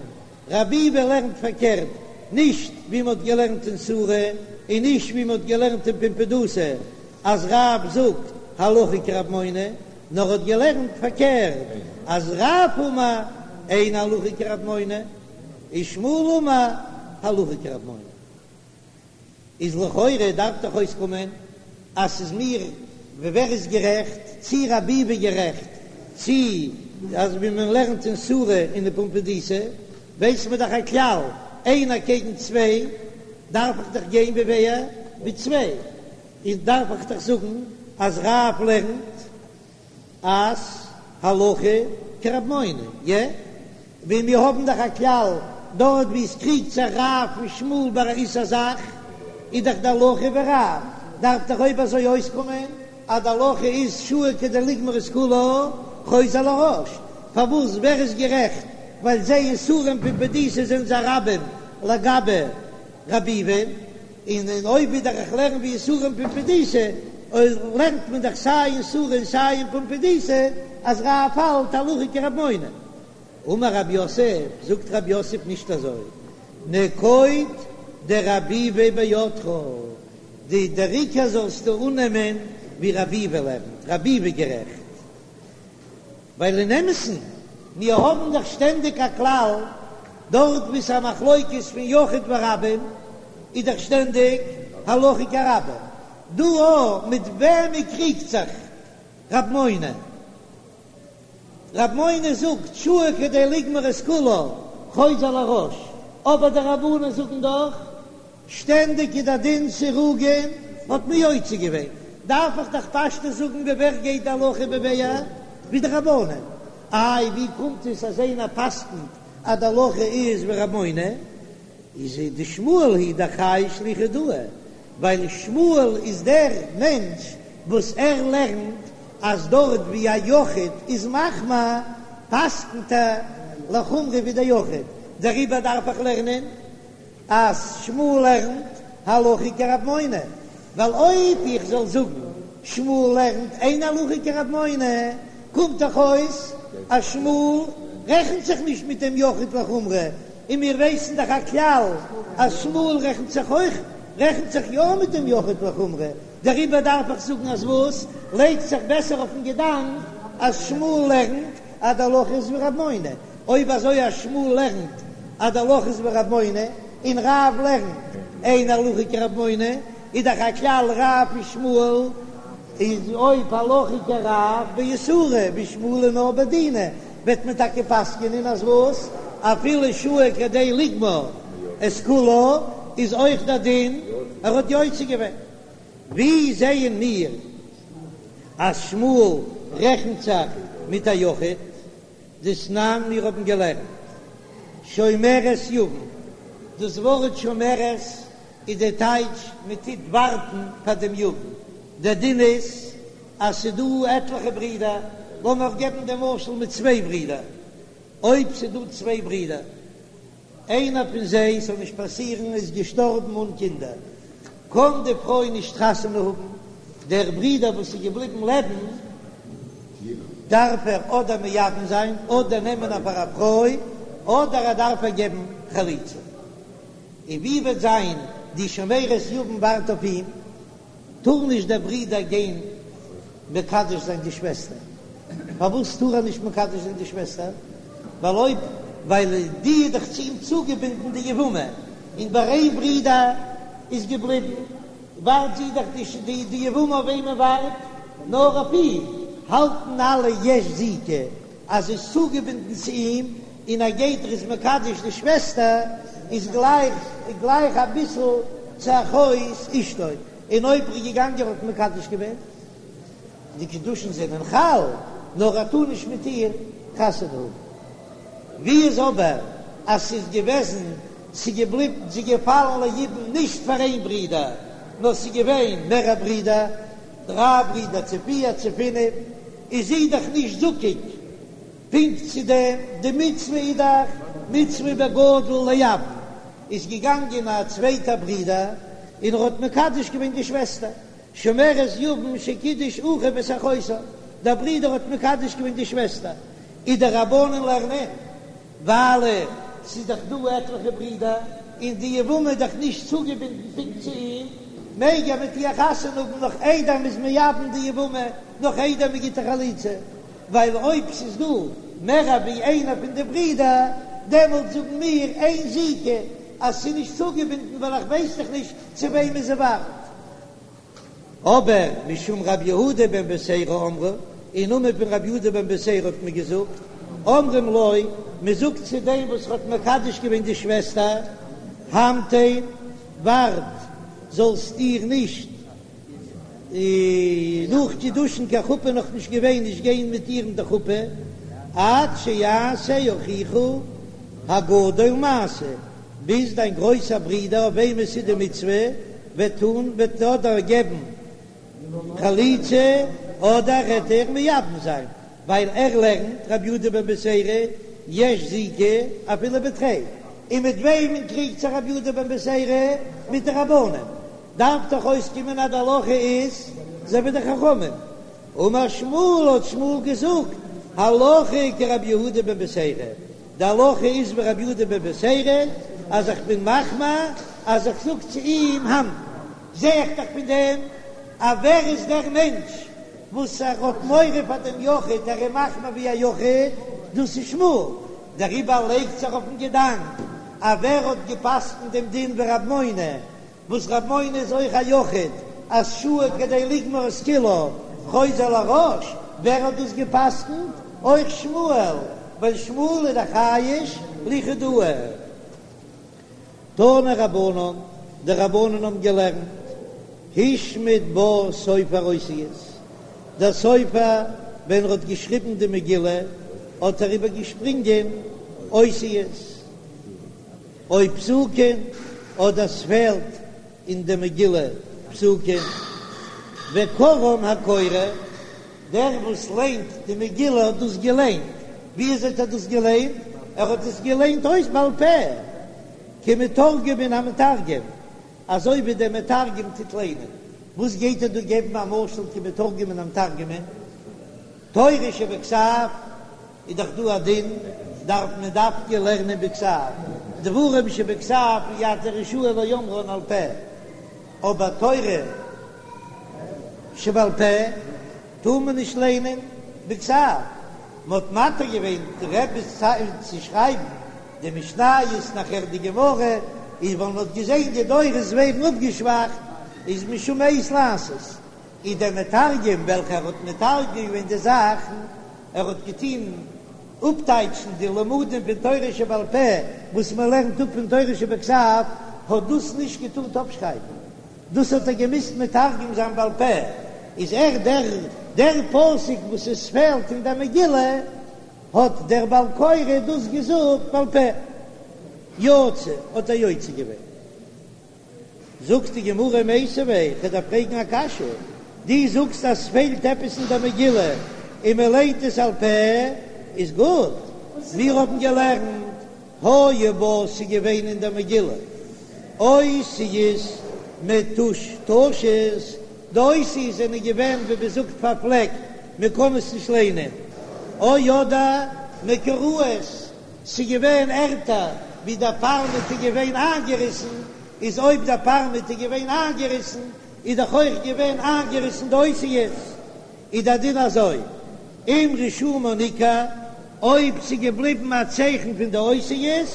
רב ביבי לערנט פארקערט, נישט ווי מ'האט געלערנט אין סורא און נישט ווי מ'האט געלערנט אין פומבדיתא אז רב זאגט הלכה כרב מונא, נאר האט געלערנט פארקערט אז רב אמר אין הלכה כרב מונא ושמואל אמר הלכה כרב מונא. איז לכאורה דארף דאך אויסקומען אז ס'איז מיר ווער איז גערעכט, צי רב ביבי גערעכט, צי אז ווי מען לערנט אין סורא און אין פומבדיתא, ווייס מען דאך א כלל, איינער קעגן צוויי, דארף איך דאך גיין ווי ווער? ווי צוויי, איז דארף איך דאך זאגן אז רב לערנט אז הלכה כרב מונא, יע? ווי מיר האבן דאך א כלל, דארט ווי עס קריגט זיך רב און שמואל ביי א איסור זאך, איז דאך די הלכה ווי רב, דארף דאך אויב אזוי אויסקומען אז די הלכה איז שהה כדי לגמור את כולה חוזר לראש, פארוואס ווער איז גערעכט ווייל זיי אין סורא און פומבדיתא זענען זיי רבים לגבי רב ביבי, און און אויב ווידער איך לערן ווי אין סורא און פומבדיתא, אויב לערנט מען דאך סיי אין סורא און סיי אין פומבדיתא אז רב האלט הלכה כרב מונא. אמר רב יוסף, זאגט רב יוסף נישט אזוי, נקוט דרב ביבי בידך, די דער עיקר זאלסטו אננעמען ווי רב ביבי לערנט, רב ביבי גערעכט. ווייל אין אמת'ן, מיר האבן דאך שטענדיג א כלל, דארט וואו ס'איז א מחלוקת פון יחיד ורבים, איז דאך שטענדיג הלכה כרבים. דא אויך, מיט וועמען קריגט זיך רב מונא? רב מונא זאגט שהה כדי לגמור את כולה חוזר לראש, אבער די רבנן זאגן דאך שטענדיג איז דער דין סירוגין האט מען יוצא געווען, דארף איך דאך פשטות זאגן ווי ווער גייט די הלכה ווי ווער ווי די רבנן, איי ווי קומט עס אז איינער פסק'נט אז די הלכה איז ווי רב מונא, איז דשמואל היא דאחראי שליחא דהא, ווייל שמואל איז דער מענטש וואס ער לערנט אז דארט ווי א יחיד איז מחמיר פסק'נט ער לחומרא ווי דער יחיד, דעריבער דארף איך לערנען אז שמואל לערנט הלכה כרב מונא, ווייל אויב איך זאל זאגן שמואל לערנט אין הלכה כרב מונא, קומט דאך אויס אז שמואל רעכנט זיך נישט מיט דעם יחיד לחומרא, און מיר ווייסן דאך א כלל אז שמואל רעכנט זיך אויך רעכנט זיך יא מיט דעם יחיד לחומרא, דעריבער דארף איך זאגן אז וואס לייגט זיך בעסער אויפן געדאנק אז שמואל לערנט אז די הלכה איז ווי רב מונא, אויב אזוי אז שמואל לערנט אז די הלכה איז ווי רב מונא, און רב לערנט אין הלכה כרב מונא, איז דאך א כלל רב ושמואל איז אויב הלכה כרב באיסורא ושמואל נאר בדינא, וועט מען טאקע פסק'ענען אז וואס? אפילו שהה כדי לגמור את כולה איז אויך דער דין ער האט יוצא געווען. ווי זעען מיר אז שמואל רעכנט זיך מיט א יחיד? דתנן מיר האבן געלערנט שומרת יבם, דאס ווארט שומרת איז די טייטש מען טוט ווארטן פאר דעם יבם, דער דין איז אז ס'דא עטליכע ברידער, לאמיר געבן דעם משל מיט צוויי ברידער, אויב ס'דא צוויי ברידער, איינער פון זיי, ס'זאל נישט פאסירן, איז געשטארבן אן קינדער, קען די פרוי נישט חתונה האבן, דער ברודער וואס איז געבליבן לעבן, דארף ער אדער מייבם זיין, אדער נעמען איר פאר א פרוי, אדער ער דארף איר געבן חליצה. און ווי וועט זיין די שומרת יבם ווארט אויף אים? טאר נישט דער ברודער גיין מקדש זיין די שוועסטער? פארוואס טאר ער נישט מקדש זיין די שוועסטער? ווייל אויב ווייל די איז דאך צו אים צוגעבינדן די יבמה, און ביי איין ברודער איז געבליבן ווארט זי דאך די די יבמה אויף וועמען ווארט נאר אויף אים, האלטן אלע יש זיקה אז זי איז צוגעבינדן צו אים, און ער גייט ער איז מקדש די שוועסטער איז גלייך גלייך אביסל. צו אחות אשתו, און אויב ער איז געגאנגען האט מקדש געווען, די קידושין זענען חל, נאר ער טאר נישט מיט איר חתונה האבן. ווי איז אבער אז ס'איז געוועזן, ס'איז געבליבן, ס'איז געפאלן ליבום נישט פאר איין ברודער, נאר ס'איז געווען מערער ברידער, דריי ברידער צו פיר צו פינף, איז זי דאך נישט זקוק פונקט צו דעם, די מצוה איז דאך מצוה בגדול לייבם, איז געגאנגען א צווייטער ברודער און ער האט מקדש געווען די שוועסטער, שומרת יבם שקידש אחיו את אחותה, דער ברודער האט מקדש געווען די שוועסטער, איז די רבנן לערנען, ווייל ס'איז דאך דא עטליכע ברידער, און די יבמה איז דאך נישט צוגעבינדן פונקט צו אים, מעג ער מיט איר חתונה האבן נאך איידער מ'איז מייבם די יבמה, נאך איידער מ'גיט איר חליצה, ווייל אויב ס'איז דא מער ווי איינער פון די ברידער, דעמאלט זאגן מיר אין זיקה אז ס'איז נישט צוגעבינדן ווייל איך ווייס דאך נישט צו וועמען זי ווארט. אבער משום רבי יהודה בן בתירא אמרו, אין נאמען פון רבי יהודה בן בתירא האט מען געזאגט, אומרים לו, מען זאגט צו דעם וואס האט מקדש געווען די שוועסטער, המתן, ווארט, זאלסט איר נישט נאך קידושין קיין חופה נאך נישט געווען, נישט גיין מיט איר אין די חופה, עד שיעשה אחיך הגדול מעשה, ביז דיין גרויסער ברודער אויף וועם עס איז די מצוה וועט טון, וועט אדער געבן חליצה אדער וועט איר מייבם זיין, ווייל ער לערנט רבי יהודה בן בתירא יש זיקה אפילו בתרי, און מיט וועמען קריגט זיך רבי יהודה בן בתירא? מיט די רבנן, דארף דאך אויסקומען אז די הלכה איז אזוי ווי די חכמים, אמר שמואל האט שמואל געזאגט הלכה כרבי יהודה בן בתירא, די הלכה איז ווי רבי יהודה בן בתירא אז איך בין מחמיר אז איך זאג צו אים המתן, זע איך דאך פון דעם אז ווער איז דער מענטש וואס ער האט מורא פאר דעם יחיד ער איז מחמיר ווי א יחיד, דאס איז שמואל, דעריבער לייגט זיך אויפן געדאנק אז ווער האט געפסקנט דעם דין ווי רב מונא וואס רב מונא איז אויך א יחיד, אז שהה כדי לגמור את כולה חוזר לראש, ווער האט דאס געפסקנט? אויך שמואל, ווייל שמואל איז דאך חייש ליחידאה. תנו רבנן, די רבנן האבן געלערנט, השמיט בה סופר אותיות, דער סופר ווען ער האט געשריבן די מגילה האט ער איבערגעשפרינגען אותיות, או פסוקים, אדער ס'פעלט אין די מגילה פסוקים, וקראן הקורא, דער וואס ליינט די מגילה האט דאס געליינט, ווי אזוי האט ער דאס געליינט? ער האט עס געליינט אויס בעל פה, כמתורגמן המתרגם, אזוי ווי דער מתרגם טוט ליינען, וואס גייט ער דא געבן א משל כמתורגמן המתרגם? תורה שבכתב איז דאך דא א דין, דארף מען דווקא לערנען בכתב, דברים שבכתב אי אתה רשאי לאומרן על פה, אבער תורה שבעל פה טאר מען נישט לערנען בכתב, מען האט מתיר געווען די רבי'ס צייט צו שרייבן די משניות נאכער די גמרא, איז ווייל מען האט געזען די דורות ווערן אפגעשוואכט, איז משום עת לעשות. איז דער מתרגם וועלכער האט מתרגם געווען די זאכן, ער האט געטון אפטייטשן די לימודים פון תורה שבעל פה וואס מען לערנט אפ פון תורה שבכתב, האט דאס נישט געטארט אפשרייבן, דאס האט ער געמוזט מתרגם זיין בעל פה, איז ער דער דער פסוק וואס עס פעלט אין דער מגילה, האט דער בעל קורא דאס געזאגט בעל פה, יצא האט ער יוצא געווען. זאגט די גמרא מיתיבי, כ'דארף פרעגן א קשיא, דו זאגסט אז ס'פעלט עפעס אין דער מגילה און מען ליינט עס על פה, איז גוט, מיר האבן געלערנט היו בה ס'איז געווען אין דער מגילה אותיות מטושטשות, די אותיות זענען געווען ווי מען זאגט פארפלעקט, מען קען עס נישט ליינען, או אדער מקורעות. ס'איז געווען ערטער ווי דער פארמעט איז געווען איינגעריסן, איז אויב דער פארמעט איז געווען איינגעריסן, איז דאך אויך געווען איינגעריסן די אותיות, איז דער דין אזוי, אם רישומן ניכר, אויב ס'איז געבליבן א צייכן פון די אותיות,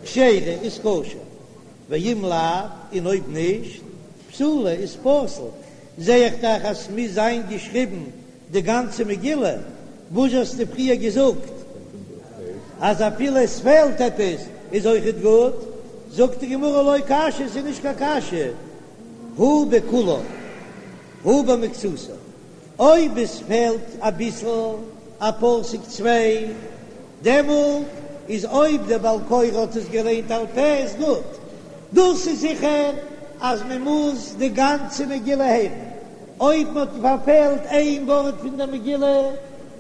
כשרה, איז כשר, ואם לאו, און אויב נישט, פסולה, איז פסול, זע איך דאך אז ס'מוז זיין געשריבן די גאנצע מגילה, וואס האסטו פריער געזאגט אז אפילו עס פעלט עפעס איז אויכעט גוט? זאגט די גמרא לא קשיא, ס'איז נישט קיין קשיא, הא בכולה הא במקצתה, אויב עס פעלט אביסל א פסוק צוויי, דעמאלט איז אויב דער בעל קורא האט עס געליינט על פה איז גוט, דאס איז זיכער אז מען מוז די גאנצע מגילה הערן, אויב מען האט פארפעלט איין ווארט פון דער מגילה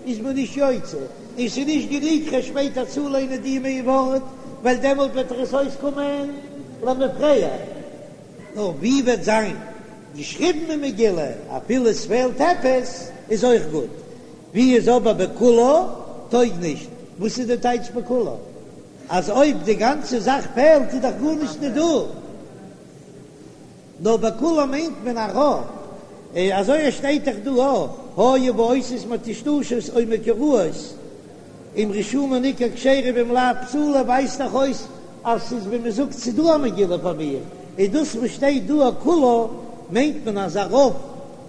איז מען נישט יוצא, און ס'איז נישט גענוג כ'וועל שפעטער צוליינען די איין ווארט, ווייל דעמאלט וועט דאך עס אויסקומען למפרע. נאר ווי וועט זיין געשריבן אין מגילה אפילו עס פעלט עפעס איז אויך גוט, ווי איז אבער בכולה טויג נישט, וואס איז די טייטש בכולה? אז אויב די גאנצע זאך פעלט איז דאך גארנישט נישט דא, נאר בכולה מיינט מען א רוב, אזוי עס שטייט דאך דא היו בה אותיות מטושטשות או מקורעות אם רשומה ניכר כשרה ואם לאו פסולה ווייזט דאך אויס אז ס'איז ווי מ'זאגט ס'איז דא א מגילה פאר מיר, איז דאס וואס שטייט דא כולה מיינט מען אז א רוב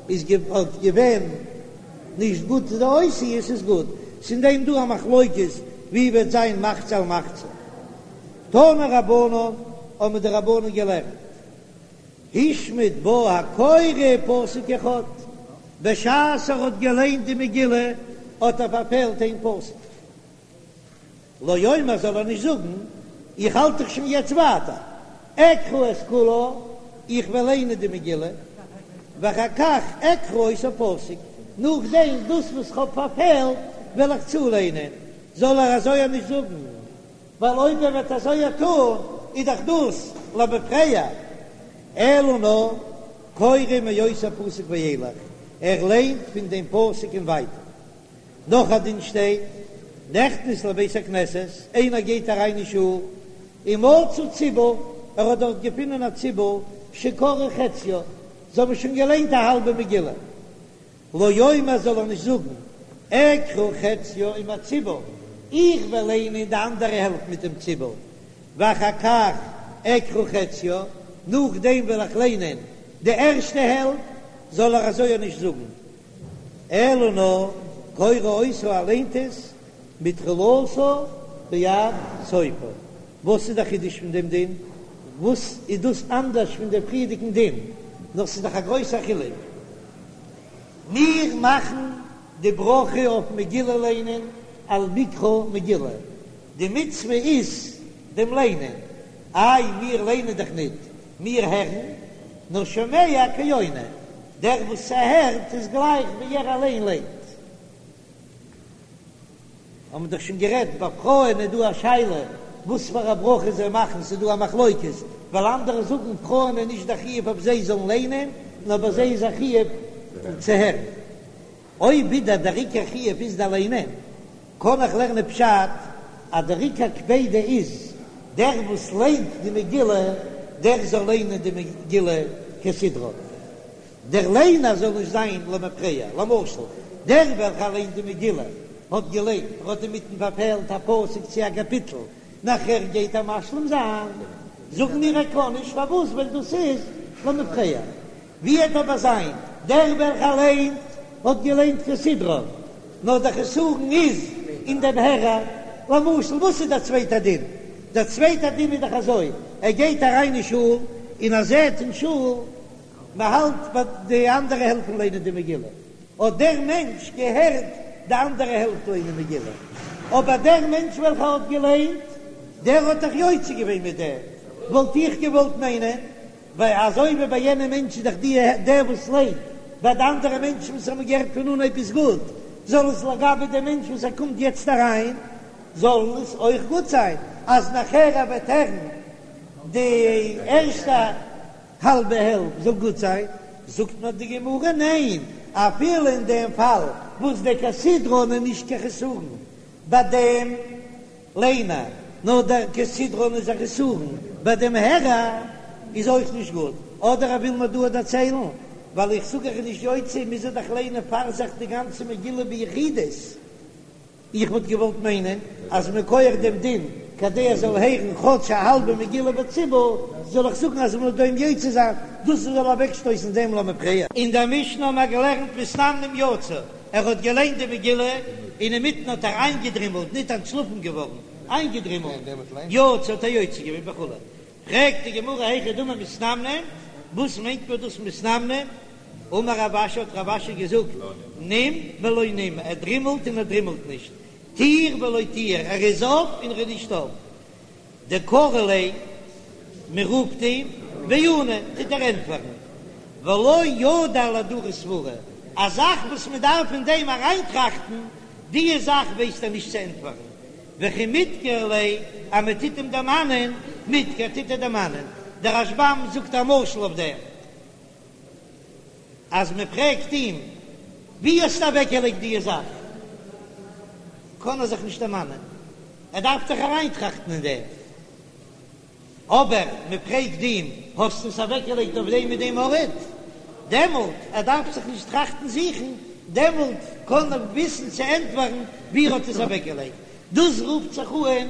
איז געווען נישט גוט די אותיות איז גוט, ס'איז אין דעם דא א מחלוקת ווי וועט זיין מחצה על מחצה. תנו רבנן האבן די רבנן געלערנט השמיט בה הקורא פסוק אחד, בשעת ער האט געליינט די מגילה האט ער פארפעלט איין פסוק, לא יאמר זאל ער נישט זאגן איך האלט דאך שוין יעצט ווייטער, אקרא את כולה, איך וועל ליינען די מגילה, ואחר כך אקרא אותו פסוק, נאכדעם דאס וואס כ'האב פארפעלט וועל איך צוליינען, זאל ער אזוי נישט זאגן. ווייל אויב ער וועט אזוי טון איז דאך דאס למפרע, אלא נאר קורא מאותו פסוק ואילך, ער ליינט פון דעם פסוק און ווייטער. נאך א דין שטייט, נכנס לבית הכנסת, איינער גייט אריין אין שול, ומצא ציבור, ער האט דארט געפונען א ציבור שקראו חציה, זיי האבן שוין געליינט א האלבע מגילה, לא יאמר זאל ער נישט זאגן, אקרא חציה עם הציבור, איך וועל ליינען די אנדערע העלפט מיט דעם ציבור, ואחר כך אקרא חציה, נאכדעם וועל איך ליינען די ערשטע העלפט, זאל ער אזוי נישט זאגן, אלא נאר קורא אותה ער ליינט עס מתחילתה ועד סופה. וואס איז דער חידוש פון דעם דין? וואס איז דאס אנדערש פון דעם פריערדיגן דין? נאר ס'איז דאך א גרויסער חילוק. מיר מאכן די ברכה אויף מגילה ליינען על מקרא מגילה, די מצוה איז דעם ליינען, איי מיר ליינען דאך ניט, מיר הערן, נאר שומע כעונה, דער וואס ס'הערט איז גלייך ווי ער אליין ליינט. האבן מיר דאך שוין גערעדט, ביי פרויען איז דא א שאלה וואס פאר א ברכה זיי מאכן, ס'איז דא א מחלוקת, ווייל אנדערע זאגן פרויען איז נישט א חיוב אויף זיי זאלן ליינען, נאר ביי זיי איז א חיוב צו הערן. אויב ווידער דער עיקר חיוב איז די ליינען, קען איך לערנען פשט אז דער עיקר קפידא איז דער וואס ליינט די מגילה, דער זאל ליינען די מגילה כסדרה. דער ליינער זאל נישט זיין למפרע, למשל, דער וועלכער ליינט די מגילה האט געליינט, ער האט אינמיטן פארפעלט א פסוק צו א קאפיטל, נאכער גייט ער משלים זיין, זאגן מיר ער קען נישט, פארוואס? ווייל דאס איז למפרע. ווי וועט אבער זיין דער וועלכער ליינט האט געליינט כסדרן, נאר דער חסרון איז אין דעם הערער, למשל, וואס איז דער צווייטער דין? דער צווייטער דין איז דאך אזוי, ער גייט אריין אין שול און ער זעט אין שול מען האלט ביי די אנדערע העלפט פון ליינען די מגילה, האט דער מענטש געהערט די אנדערע העלפט ליינען מגילה, אבער דער מענטש וועלכער האט געליינט, דער האט דאך יוצא געווען מיט דעם, וואלט איך געוואלט מיינען, ווייל אזוי ווי ביי יענעם מענטש איז דאך די דער וואס ליינט, ביי די אנדערע מענטשן וואס האבן געהערט פון אנהייב איז גוט, זאל עס לגבי דעם מענטש וואס ער קומט יעצט אריין, זאל עס אויך גוט זיין, אז נאכער ער וועט הערן די ערשטע. האלבע העלפט זאל גוט זיין, זאגט מיר די גמרא ניין, אפילו אין דעם פאל וואס דער כסדרן איז נישט קיין חסרון ביי דעם ליינער, נאר דער כסדרן איז א חסרון ביי דעם הערער, איז אויך נישט גוט, אדער ער וויל מיר דא דערציילן, ווייל איך זאג ער איז נישט יוצא, מוז ער דאך ליינען פאר זיך די גאנצע מגילה ביחידות. איך וואלט געוואלט מיינען אז מכח דעם דין כדי ער זאל הערן כאטש א האלבע מגילה בציבור, זאל איך זאגן אז מ'זאל דעם יוצא זיין, דאס זאל אוועקשטויסן דעם למפרע. אין דער משנה האבן מיר געלערנט מתנמנם יצא, ער האט געליינט די מגילה און אינמיטן האט ער איינגעדרימלט, ניט אנטשלאפן געווארן, איינגעדרימלט, יצא האט ער יוצא געווען וכו'. פרעגט די גמרא היכי דמי מתנמנם, וואס מיינט מען דאס מתנמנם? אמר רב אשי האט רב אשי געזאגט, נים ולא נים, ער דרימלט און ער דרימלט נישט, טיר ולא טיר, ער איז אויף און ער איז נישט אויף. דקרו ליה, מען רופט אים, ועני, טוט ער ענטפערן, ולא ידע לאהדורי סברא, א זאך וואס מען דארף אין דעם אריינטראכטן, די זאך ווייסט ער נישט צו ענטפערן, וכי מדכר ליה, אז מען טוט אים דערמאנען, מדכר, טוט ער דערמאנען. דער רשב"ם זאגט א משל אויף דעם, אז מען פרעגט אים, ווי האסטו אוועקגעלייגט די זאך? קען ער זיך נישט דערמאנען, ער דארף זיך אריינטראכטן אין דעם. אבער מען פרעגט אים, האסט עס אוועקגעלייגט אויף דעם און דעם ארט? דעמאלט, ער דארף זיך נישט טראכטן זוכן, דעמאלט קען ער וויסן צו ענטפערן ווי ער האט עס אוועקגעלייגט. דאס רופט זיך אן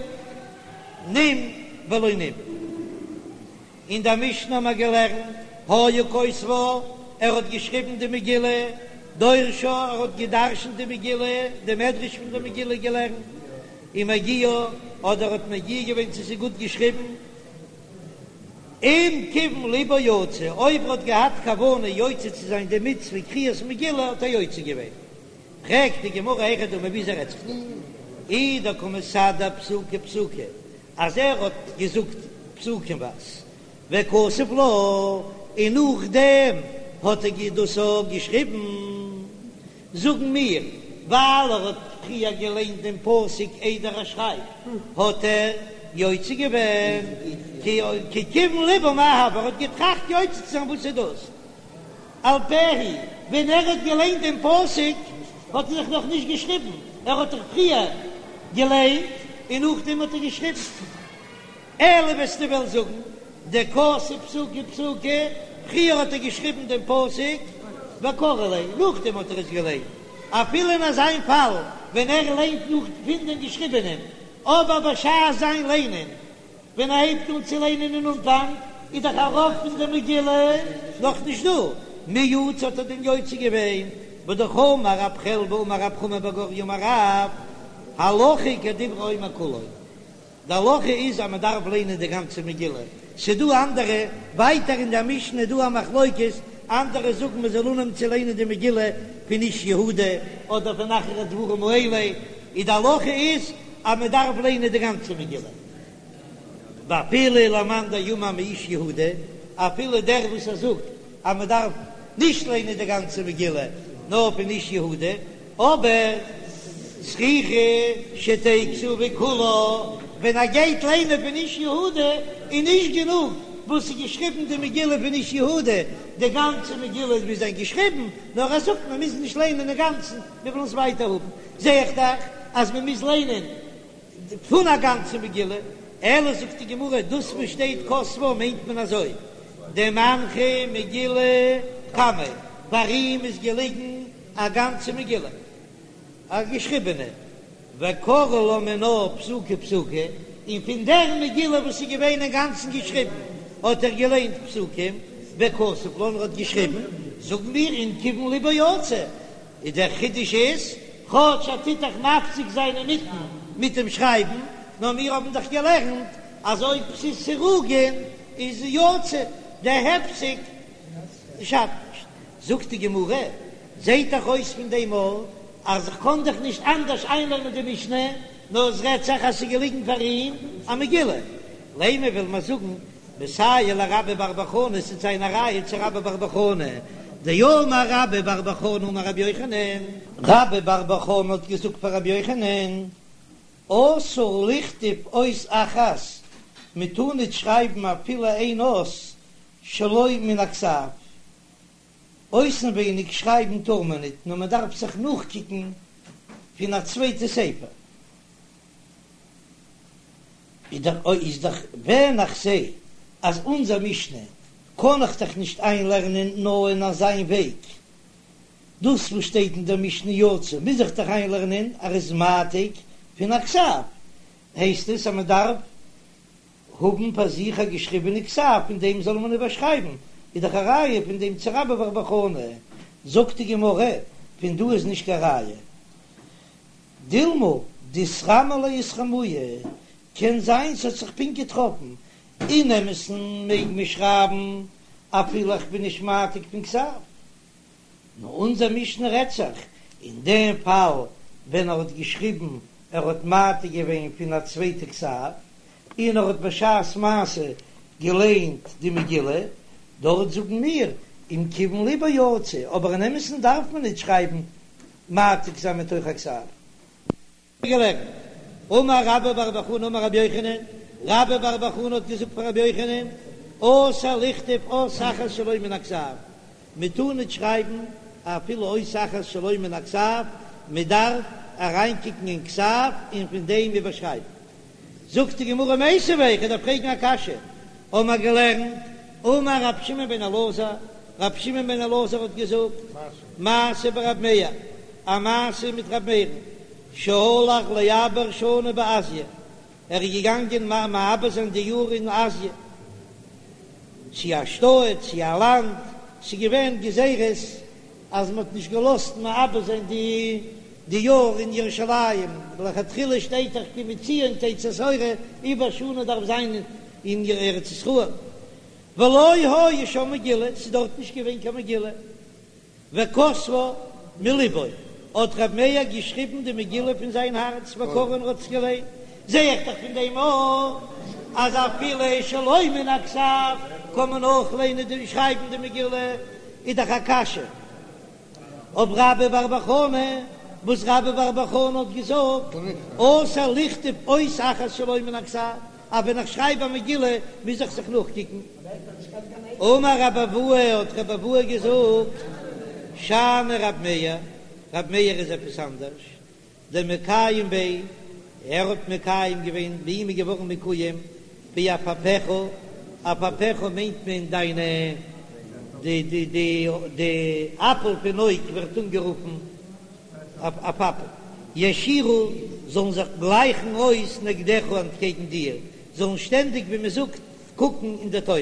נים ולא נים. אין דער משנה האבן מיר געלערנט, היה כותבה, ער האט געשריבן די מגילה, דורשה, ער האט גע'דרש'נט די מגילה, די מדרש פון די מגילה געלערנט, ומגיהה, אדער האט מגיה געווען צו ס'איז גוט געשריבן, אם כיוון ליבו יצא, אויב ער האט געהאט כוונה יוצא צו זיין די מצוה קריאת מגילה האט ער יוצא געווען. פרעגט די גמרא היכי דמי וויאזוי רעדט זיך דא? אי דקא מסדר פסוקי פסוקי אז ער האט געזאגט פסוקימווייז וכתב לה און נאכדעם האט ער דאס אויך געשריבן, זאגן מיר ווייל ער האט פריער געליינט דעם פסוק איידער ער שרייבט האט ער יוצא געווען, כי כיוון ליבו מאי הוי, ער האט געטראכט יוצא צו זיין וואס איז דאס? על פה הוא, ווען ער האט געליינט דעם פסוק האט ער זיך נאך נישט געשריבן, ער האט דאך פריער געליינט און נאכדעם האט ער געשריבן. אלא וועסטו וועלן זאגן דכתב פסוקי פסוקי, פריער האט ער געשריבן דעם פסוק וקרי ליה, נאכדעם האט ער עס געליינט, אפילו אין אזיין פאל ווען ער ליינט נאך פון דעם געשריבענעם, אבער בשעת זיין ליינען ווען ער הייבט אן צו ליינען אין אנפאנג איז דאך א רוב פון די מגילה נאך נישט דא, מי יצא האט ער דען יוצא געווען? והאמר רב חלבו אמר רב חמא בר גוריא אמר רב, הלכה כדברי האומר כולו, די הלכה איז אז מען דארף ליינען די גאנצע מגילה, ס'דא אנדערע, ווייטער אין די משנה איז דא א מחלוקת, אנדערע זאגן מען זאל אנהויבן צו ליינען די מגילה פון איש יהודה אדער פון אחר הדברים האלה, איז די הלכה איז אז מען דארף ליינען די גאנצע מגילה. ואפילו למאן דאמר מאיש יהודה, אפילו דער וואס ער זאגט אז מען דארף נישט ליינען די גאנצע מגילה נאר פון איש יהודה, אבער צריכה שתהא כתובה כולה, ווען ער גייט ליינען פון איש יהודה איז נישט גענוג וואס איז געשריבן די מגילה פון איש יהודה, די גאנצע מגילה מוז זיין געשריבן, נאר ער זאגט מען מוז נישט ליינען אינגאנצן, מיר ווילן עס ווייטער האבן, זע איך דאך אז מען מוז ליינען פון א גאנצע מגילה, אלא זאגט די גמרא, דאס וואס שטייט כתבה מיינט מען אזוי, דמנחה מגילה קמיה, פאר אים איז געליגן א גאנצע מגילה, א געשריבענע, וקרי לה מינה פסוקי פסוקי, און פון דער מגילה וואס איז געווען אינגאנצן געשריבן האט ער געליינט פסוקים, וכתב לה און ער האט געשריבן, זאגן מיר אם כיוון ליבו יצא, איז דער חידוש איז, כאטש ער טוט דאך מפסיק זיין אינמיטן מיט דעם שרייבן, נאר מיר האבן דאך געלערנט אז אויב ס'איז סירוגין איז יוצא, דער הפסק שאדט נישט. זאגט די גמרא, זעט דאך אויס פון דעם אויך אז איך קען דאך נישט אנדערש איינלערנען די משנה, נאר עס רעדט זיך אז ס'איז געליגן פאר אים א מגילה. לימא וויל מען זאגן מסייע לרבה בר בר חנה ס'וועט זיין א ראיה צו רבה בר בר חנה, דאמר רבה בר בר חנה אמר רבי יוחנן, רבה בר בר חנה האט געזאגט פאר רבי יוחנן, אסור לכתוב אות אחת, מען טאר ניט שרייבן אפילו איין אות שלא מן הכתב, אויסנווייניג שרייבן טאר מען ניט, נאר מען דארף זיך נאכקוקן פון א צווייטע ספר. איז דאך ווען איך זע אז אונזער משנה קען איך דאך נישט איינלערנען נאר אין אזיין וועג, דאס וואס שטייט אין דער משנה יצא מוז איך דאך איינלערנען אז ער איז מעתיק פון א כתב, הייסט עס אז מען דארף האבן פאר זיך א געשריבענע כתב פון דעם זאל מען איבערשרייבן, איז דאך א ראיה פון דעם צו רבה בר בר חנה, זאגט די גמרא, פון דא איז נישט קיין ראיה. דילמא דאיתרמי ליה אתרמויי, קען זיין ס'האט זיך פונקט געטראפן. אין אמת'ן מעג מען שרייבן אפילו איך בין נישט מעתיק פון כתב. נאר אונזער משנה רעדט זיך אין דעם פאל ווען ער האט געשריבן, ער האט מעתיק געווען פון א צווייטע כתב, און ער האט בשעת מעשה געליינט די מגילה, דארט זאגן מיר אם כיוון לבו יצא, אבער אין אמת'ן דארף מען ניט שרייבן מעתיק זיין מתוך הכתב. געלערנט, אמר רבה בר בר חנה אמר רבי יוחנן, רבה בר בר חנה האט געזאגט פאר רבי יוחנן, אסור לכתוב אות אחת שלא מן הכתב, מען טאר ניט שרייבן אפילו אות אחת שלא מן הכתב, מען דארף אריינקוקן אין כתב און פון דעם איבערשרייבן. זאגט די גמרא מיתיבי, איך דארף פרעגן א קשיא, האבן מיר געלערנט, אמר רבי שמעון בן אלעזר, רבי שמעון בן אלעזר האט געזאגט, מעשה ברבי מאיר, א מעשה מיט רבי מאיר'ן, שהלך לעבר שנה בעסיא, ער איז געגאנגען מעבר זיין די יאר אין אזיע, צו א שטאט, צו א לאנד, ס'איז געווען גזירות אז מ'האט נישט געלאזט מעבר זיין די די יאר אין ירושלים, לכתחילה שטייט דאך כי מציון תצא תורה, עיבור שנה דארף זיין אין ארץ ישראל, ולא היה שם מגילה, ס'איז דארט נישט געווען קיין מגילה. וכתבה מלבו, האט ר' מאיר געשריבן די מגילה פון זיין הארץ וקראה און האט עס געליינט, זע איך דאך פון דעם אויך אז אפילו שלא מן הכתב קען מען אויך ליינען די שרייבן די מגילה, איז דאך א קשיא אויף רבה בר בר חנה, וואס רבה בר בר חנה האט געזאגט אסור לכתוב אות אחת שלא מן הכתב. אז ווען איך שרייב א מגילה מוז איך זיך נאכקוקן. אמר רבי אבהו, האט רבי אבהו געזאגט, שאני רב מאיר, רב מאיר איז עפעס אנדערש, דמקיים ביה, ער האט מקיים געווען, ביי אים איז געווארן מקוים, בעפעפיך, עפעפיך מיינט מען דיינע, די די די די אפל פון אויג ווערט אנגערופן עפעף, יישירו זאלן זיך גלייכן אויס נגדך אנטקעגן דיר, זאלן שטענדיג ווי מען זאגט קוקן אין די תורה.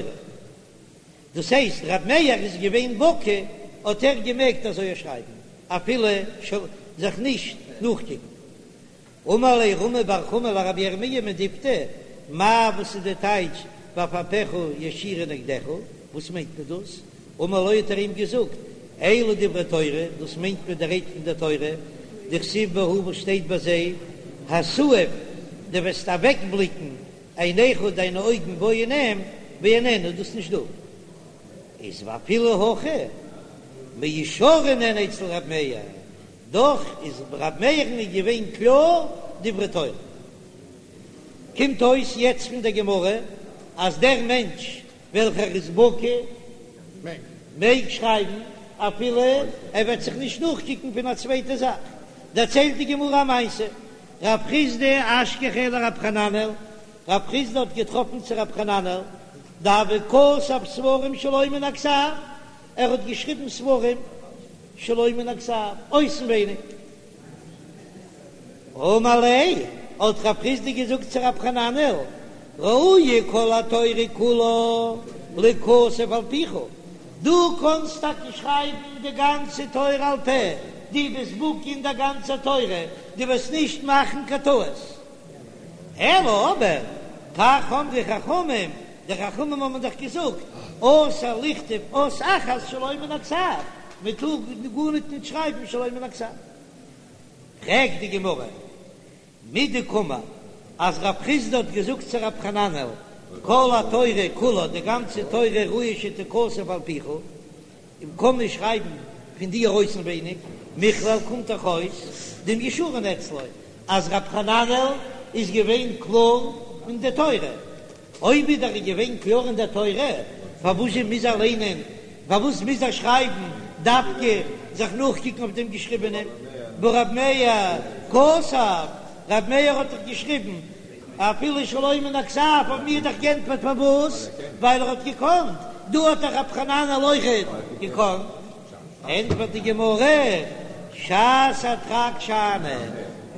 דאס הייסט ר' מאיר איז געווען בקי האט ער געמעגט אזוי שרייבן אפילו זיך נישט נאכקוקן. אמר ליה רמי בר חמא לרבי ירמיה מדפתי, מאי וואס איז די טייטש ועפעפיך יישירו נגדך, וואס מיינט מען דאס? אמר לו האט ער אים געזאגט, אלו דברי תורה, דאס מיינט מען די רייד פון דער תורה, דכתיב בהו וואס שטייט ביי זיי, התעיף, דו וועסט אוועקבליקן עיניך דיינע אויגן בו אין אים, ואיננו איז דאס נישט דא. איז ואפילו הכי מיושרין הן אצל ר' מאיר, דאך איז ר' מאיר'ן איז געווען קלאר דברי תורה. קומט אויס יעצט פון דער גמרא אז דער מענטש וועלכער איז בקי מעג שרייבן אפילו ער וועט זיך נישט נאכקוקן פון א צווייטע זאך. דערציילט די גמרא א מעשה, רב חסדא אשכחיה לרב חננאל, רב חסדא האט געטראפן צו רב חננאל דהוה כתב ספרים שלא מן הכתב, ער האט געשריבן ספרים שלא מן הכתב, אויסנווייניג. אמר ליה, האט רב חסדא געזאגט צו רב חננאל, ראויה כל התורה כולה ליכתב על פיך, דו קאנסט טאקע שרייבן די גאנצע תורה על פה, דו ביסט בקי אין דער גאנצער תורה, דו וועסט נישט מאכן קיין טעות. אלא אבער, כך אמרו חכמים, די חכמים האבן דאך געזאגט, אסור לכתוב אות אחת שלא מן הכתב, מען טאר גארניט ניט שרייבן שלא מן הכתב. פרעגט די גמרא, מדקאמר, אז רב חסדא האט געזאגט צו רב חננאל, כל התורה כולה, די גאנצע תורה ראוי שתכתב על פיך, און קען מען שרייבן פון דיר אויסנווייניג, מכלל קומט דאך אויס דמיושרין אצלו אז רב חננאל איז געווען קלאר אין די תורה, אויב איז ער געווען קלאר אין די תורה, פארוואס זשע מוז ער ליינען, פארוואס מוז ער שרייבן דווקא זיך נאכקוקן אויף דעם געשריבענעם, והא רב מאיר כתב, רב מאיר האט דאך געשריבן אפילו שלא מן הכתב האבן מיר דאך גענטפערט פארוואס, ווייל ער האט געקאנט, דא האט דאך רב חננאל אויכעט געקאנט. ענטפערט די גמרא, שעת הדחק שאני,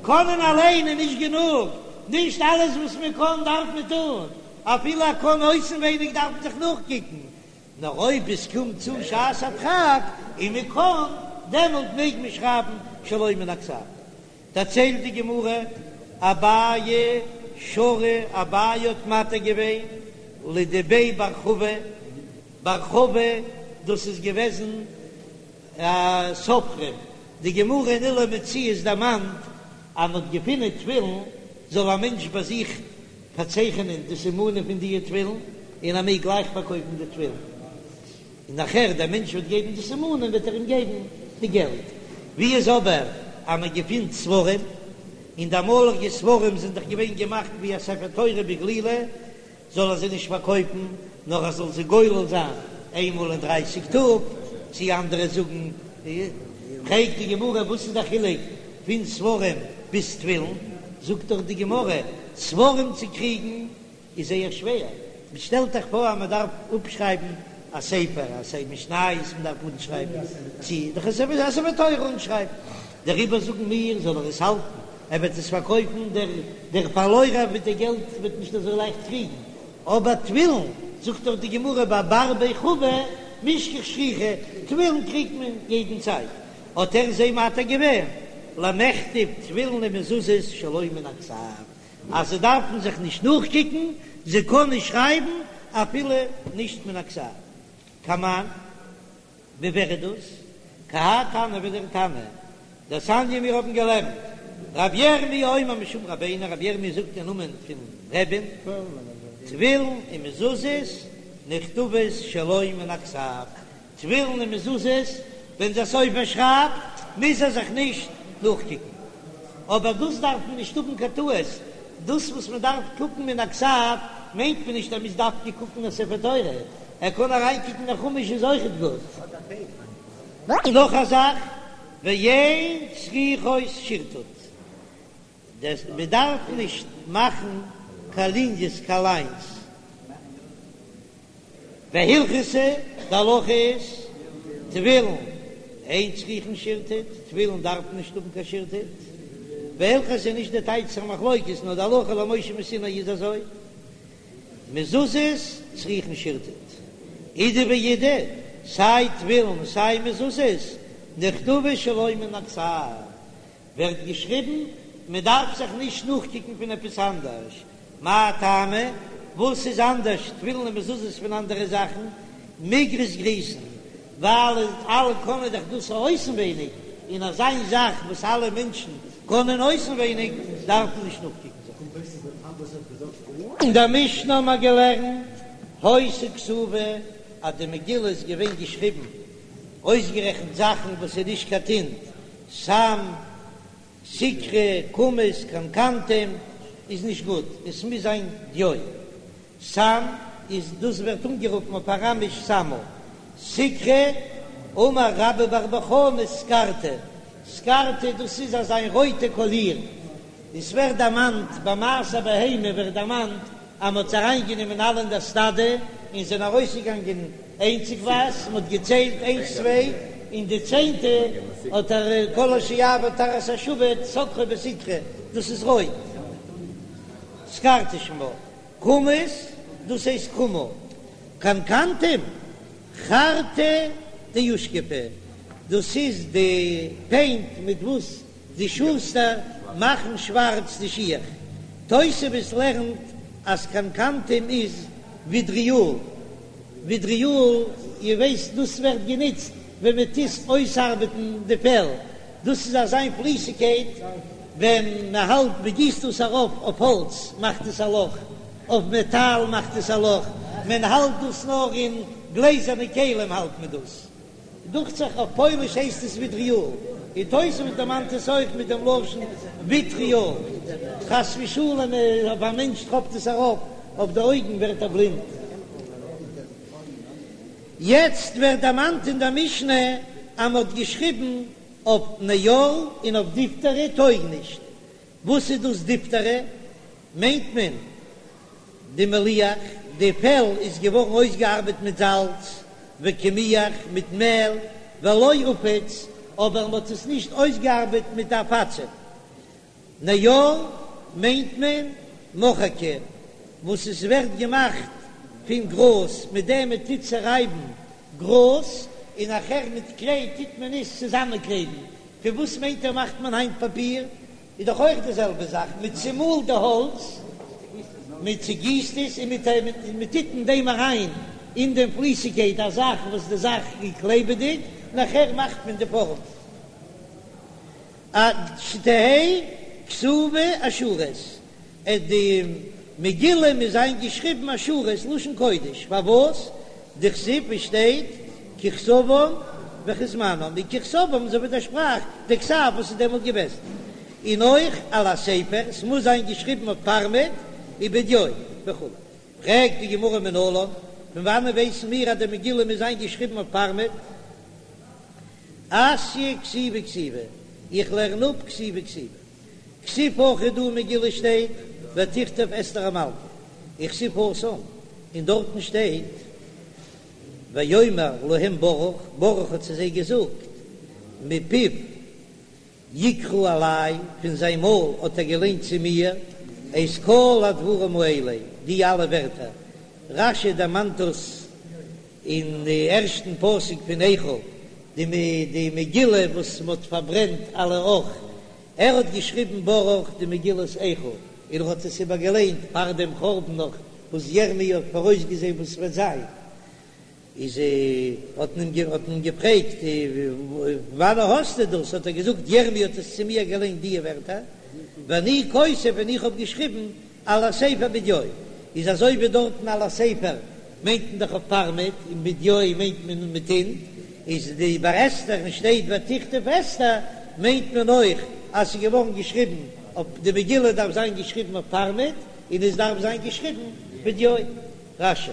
קענען אליין איז נישט גענוג, נישט אלעס וואס מען קען דארף מען טון, אפילו ער קען אויסנווייניג דארף מען זיך נאכקוקן, נאר אויב עס קומט צו שעת הדחק און מען קען, דעמאלט מעג מען שרייבן שלא מן הכתב. דערציילט די גמרא, אביי שרא, אביי האט מתיר געווען. לדבי בר חבו, בר חבו דאס איז געוועזן א סופרים, די גמרא אין אלו מציאות דערמאנט אז מען האט געפינען תפילין, זאל א מענטש ביי זיך פארצייכענען די סימנים פון דיע תפילין, און ער מעג גלייך פארקויפן די תפילין, און נאכער דער מענטש וועט געבן די סימנים וועט ער אים געבן די געלט. ווי איז אבער אז מען געפינט ספרים, און די אמאליגע ספרים זענען דאך געווען געמאכט ווי א ספר תורה בגלילה, זאל ער זיי נישט פארקויפן, נאר ער זאל זיי גולל זיין איינמאל אין דרייסיג טאג, צי אנדערע זאגן, פרעגט די גמרא וואס איז דער חילוק פון ספרים ביז תפילין, זאגט דאך די גמרא, ספרים צו קריגן איז זייער שווער, מען שטעלט זיך פאר אז מען דארף אפשרייבן א ספר, א ספר משניות מען דארף אנשרייבן, צי דאך א ספר תורה אנשרייבן, דעריבער זאגן מיר זאל ער עס האלטן, ער וועט עס פארקויפן, דער דער פארלוירער מיט די געלט וועט נישט אזוי לייכט קריגן, אבער תפילין, זאגט דאך די גמרא ביי בר בי חבו מישכח שכיחי, תפילין קריגט מען יעדן צייט, האט ער זיי מתיר געווען למכתב תפילין ומזוזות שלא מן הכתב, אז זיי דארפן זיך נישט נאכקוקן, זיי קענען שרייבן אפילו נישט מן הכתב. כמאן. ווי ווער איז דאס? כי האי תנא ווי דער תנא דתניא מיר האבן געלערנט רבי ירמי' אומר משום רבינו רבי ירמי' זאגט אין נאמען פון רבי'ן תפילין ומזוזות נכתבות שלא מן הכתב תפילין און מזוזות ווען דער סופר שרייבט מוז ער זיך נישט נאכקוקן אבער דאס דארף מען נישט האבן קיין טעות דאס וואס מען דארף קוקן מן הכתב מיינט מען נישט אז מ'מוז דווקא קוקן אין ספר תורה ער קען אריינקוקן אין חומש איז אויכעט גוט. נאך א זאך, ואין צריכות שירטוט, דעס מען דארף נישט מאכן קיין ליניעס קיין ליינס, והלכתא, די הלכה איז, תפילין אין צריכין שירטוט, תפילין דארף נישט האבן קיין שירטוט, והלכתא איז נישט די טייטש פון מחלוקת נאר די הלכה למשה מסיני איז אזוי. מזוזות צריכין שירטוט, אידי ואידי, סיי תפילין סיי מזוזות, נכתבות שלא מן הכתב, ווערט געשריבן, מען דארף זיך נישט נאכקוקן פון עפעס אנדערש, מאי טעמא, וואס איז אנדערש תפילין און מזוזות פון אנדערע זאכן, מיגרס גריסין, ווייל אלע קענען דאך דאס אויסנווייניג, און אזא איין זאך וואס אלע מענטשן קענען אויסנווייניג דארף מען נישט נאכקוקן זיך. אין דער משנה האבן מיר געלערנט היתה כתובה אז די מגילה איז געווען געשריבן אויסגערעכנט זאכן וואס איז נישט קיין טינט, סם, סיקרא, קומוס, קנקנתום איז נישט גוט, עס מוז זיין דיו. סם איז דאס ווערט אנגערופן אויף אראמיש סמא. סיקרא, אמר רבה בר בר חנה סקרתא, סקרתא דאס איז אזא איין רויטע קאליר, עס ווערט דערמאנט ביי מעשר בהמה ווערט דערמאנט אז מען האט זיי אריינגענומען אלע אין דער סטאדע און זענען ארויסגעגאנגען איינציגווייז, מען האט געציילט איינס צוויי און די צענטע האט ער כל אשר יעבור תחת השבט סקרו בסיקרא, דאס איז רויט, סקרתא שמה. קומוס, דאס הייסט כומא. קנקנתום, חרתא דאושכפי, דאס איז די פעינט מיט וואס די שוסטער מאכן שווארץ די שיך. תוספות לערנט אז קנקנתום איז וויטריאל. וויטריאל, איר ווייסט דאס ווערט גענוצט ווען מען טוט אויסארבעטן די פעל. דאס איז אזא איין פליסיגקייט ווען מען האלט מען גיסט דאס ארויף אויף האלץ מאכט עס א לאך, אויף מעטאל מאכט עס א לאך, מען האלט דאס נאר אין גלעזערנע כלים האלט מען דאס, דוכט זיך אויף פויליש הייסט עס וויטריאל, און תוספות דערמאנט עס אויך מיט דעם לשון וויטריאל, חס ושלום אויב א מענטש טראפט עס ארויף אויף די אויגן ווערט ער בלינד. יעצט ווערט דערמאנט אין דער משנה אז מען האט געשריבן אויף נייר און אויף דיפתרא טויג נישט. וואס איז דאס דיפתרא? מיינט מען דמליח, די פעל איז געווארן אויסגעארבעט מיט זאלץ, וקמיח, מיט מעל, ולא עפיץ, אבער מען האט עס נישט אויסגעארבעט מיט עפצים. נייר מיינט מען מחקא וואס עס ווערט געמאכט פון גראז מיט דעם מען טוט צערייבן גראז און נאכער מיט קליי טוט מען עס צוזאמענקלעבן, פון וואס מיינט איר מאכט מען היינט פאפיר? איז דאך אויך די זעלבע זאך, מען צומאלט די האלץ. מען צעגיסט עס און מען טוט אין דעם אריין אין דעם פליסיגקייט א זאך וואס די זאך איז קלעבעדיג, נאכער מאכט מען די פארעם. עד שתהא כתובה אשורית, אז די מגילה מוז זיין געשריבן אשורית לשון קודש, פארוואס? דכתיב עס שטייט ככתבם וכזמנם, און ככתבם אזוי ווי די שפראך די כתב וואס איז דעמאלט געוועזן, און אויך על הספר, ס'מוז זיין געשריבן אויף פארמעט ובדיו וכו'. פרעגט די גמרא מנלן, פון וואנען ווייסן מיר אז די מגילה מוז זיין געשריבן אויף פארמעט? אתיא כתיבה כתיבה, איך לערן אפ כתיבה כתיבה. כתיב הכא דא אין מגילה שטייט ותכתב אסתר המלכה, וכתיב התם, און דארטן שטייט ויאמר להם ברוך, ברוך האט צו זיי געזאגט, מפיו יקרא אלי, פון זיין מויל האט ער געליינט צו מיר, את כל הדברים האלה, די אלע ווערטער. רש"י דערמאנט דאס אין די ערשטן פסוק פון איכה, די מגילה וואס מען האט פארברענט על האח, ער האט געשריבן ברוך די מגילת איכה, און ער האט עס איבערגעליינט פאר דעם חורבן נאך וואס ירמי' האט פאראויסגעזען וואס ס'וועט זיין, איז האט מען אים געפרעגט וואנען האסטו דאס, האט ער געזאגט ירמי' האט עס צו מיר געליינט די ווערטער, ואני כותב און איך האב געשריבן על הספר בדיו, איז אזוי ווי דארטן על הספר מיינט מען דאך אויף פארמעט, און בדיו מיינט מען מיט טינט, איז די ביי אסתר און שטייט ותכתב אסתר מיינט מען אויך אז ס'איז געווארן געשריבן אויף די מגילה דארף זיין געשריבן אויף פארמעט, און עס דארף זיין געשריבן בדיו. רש"י.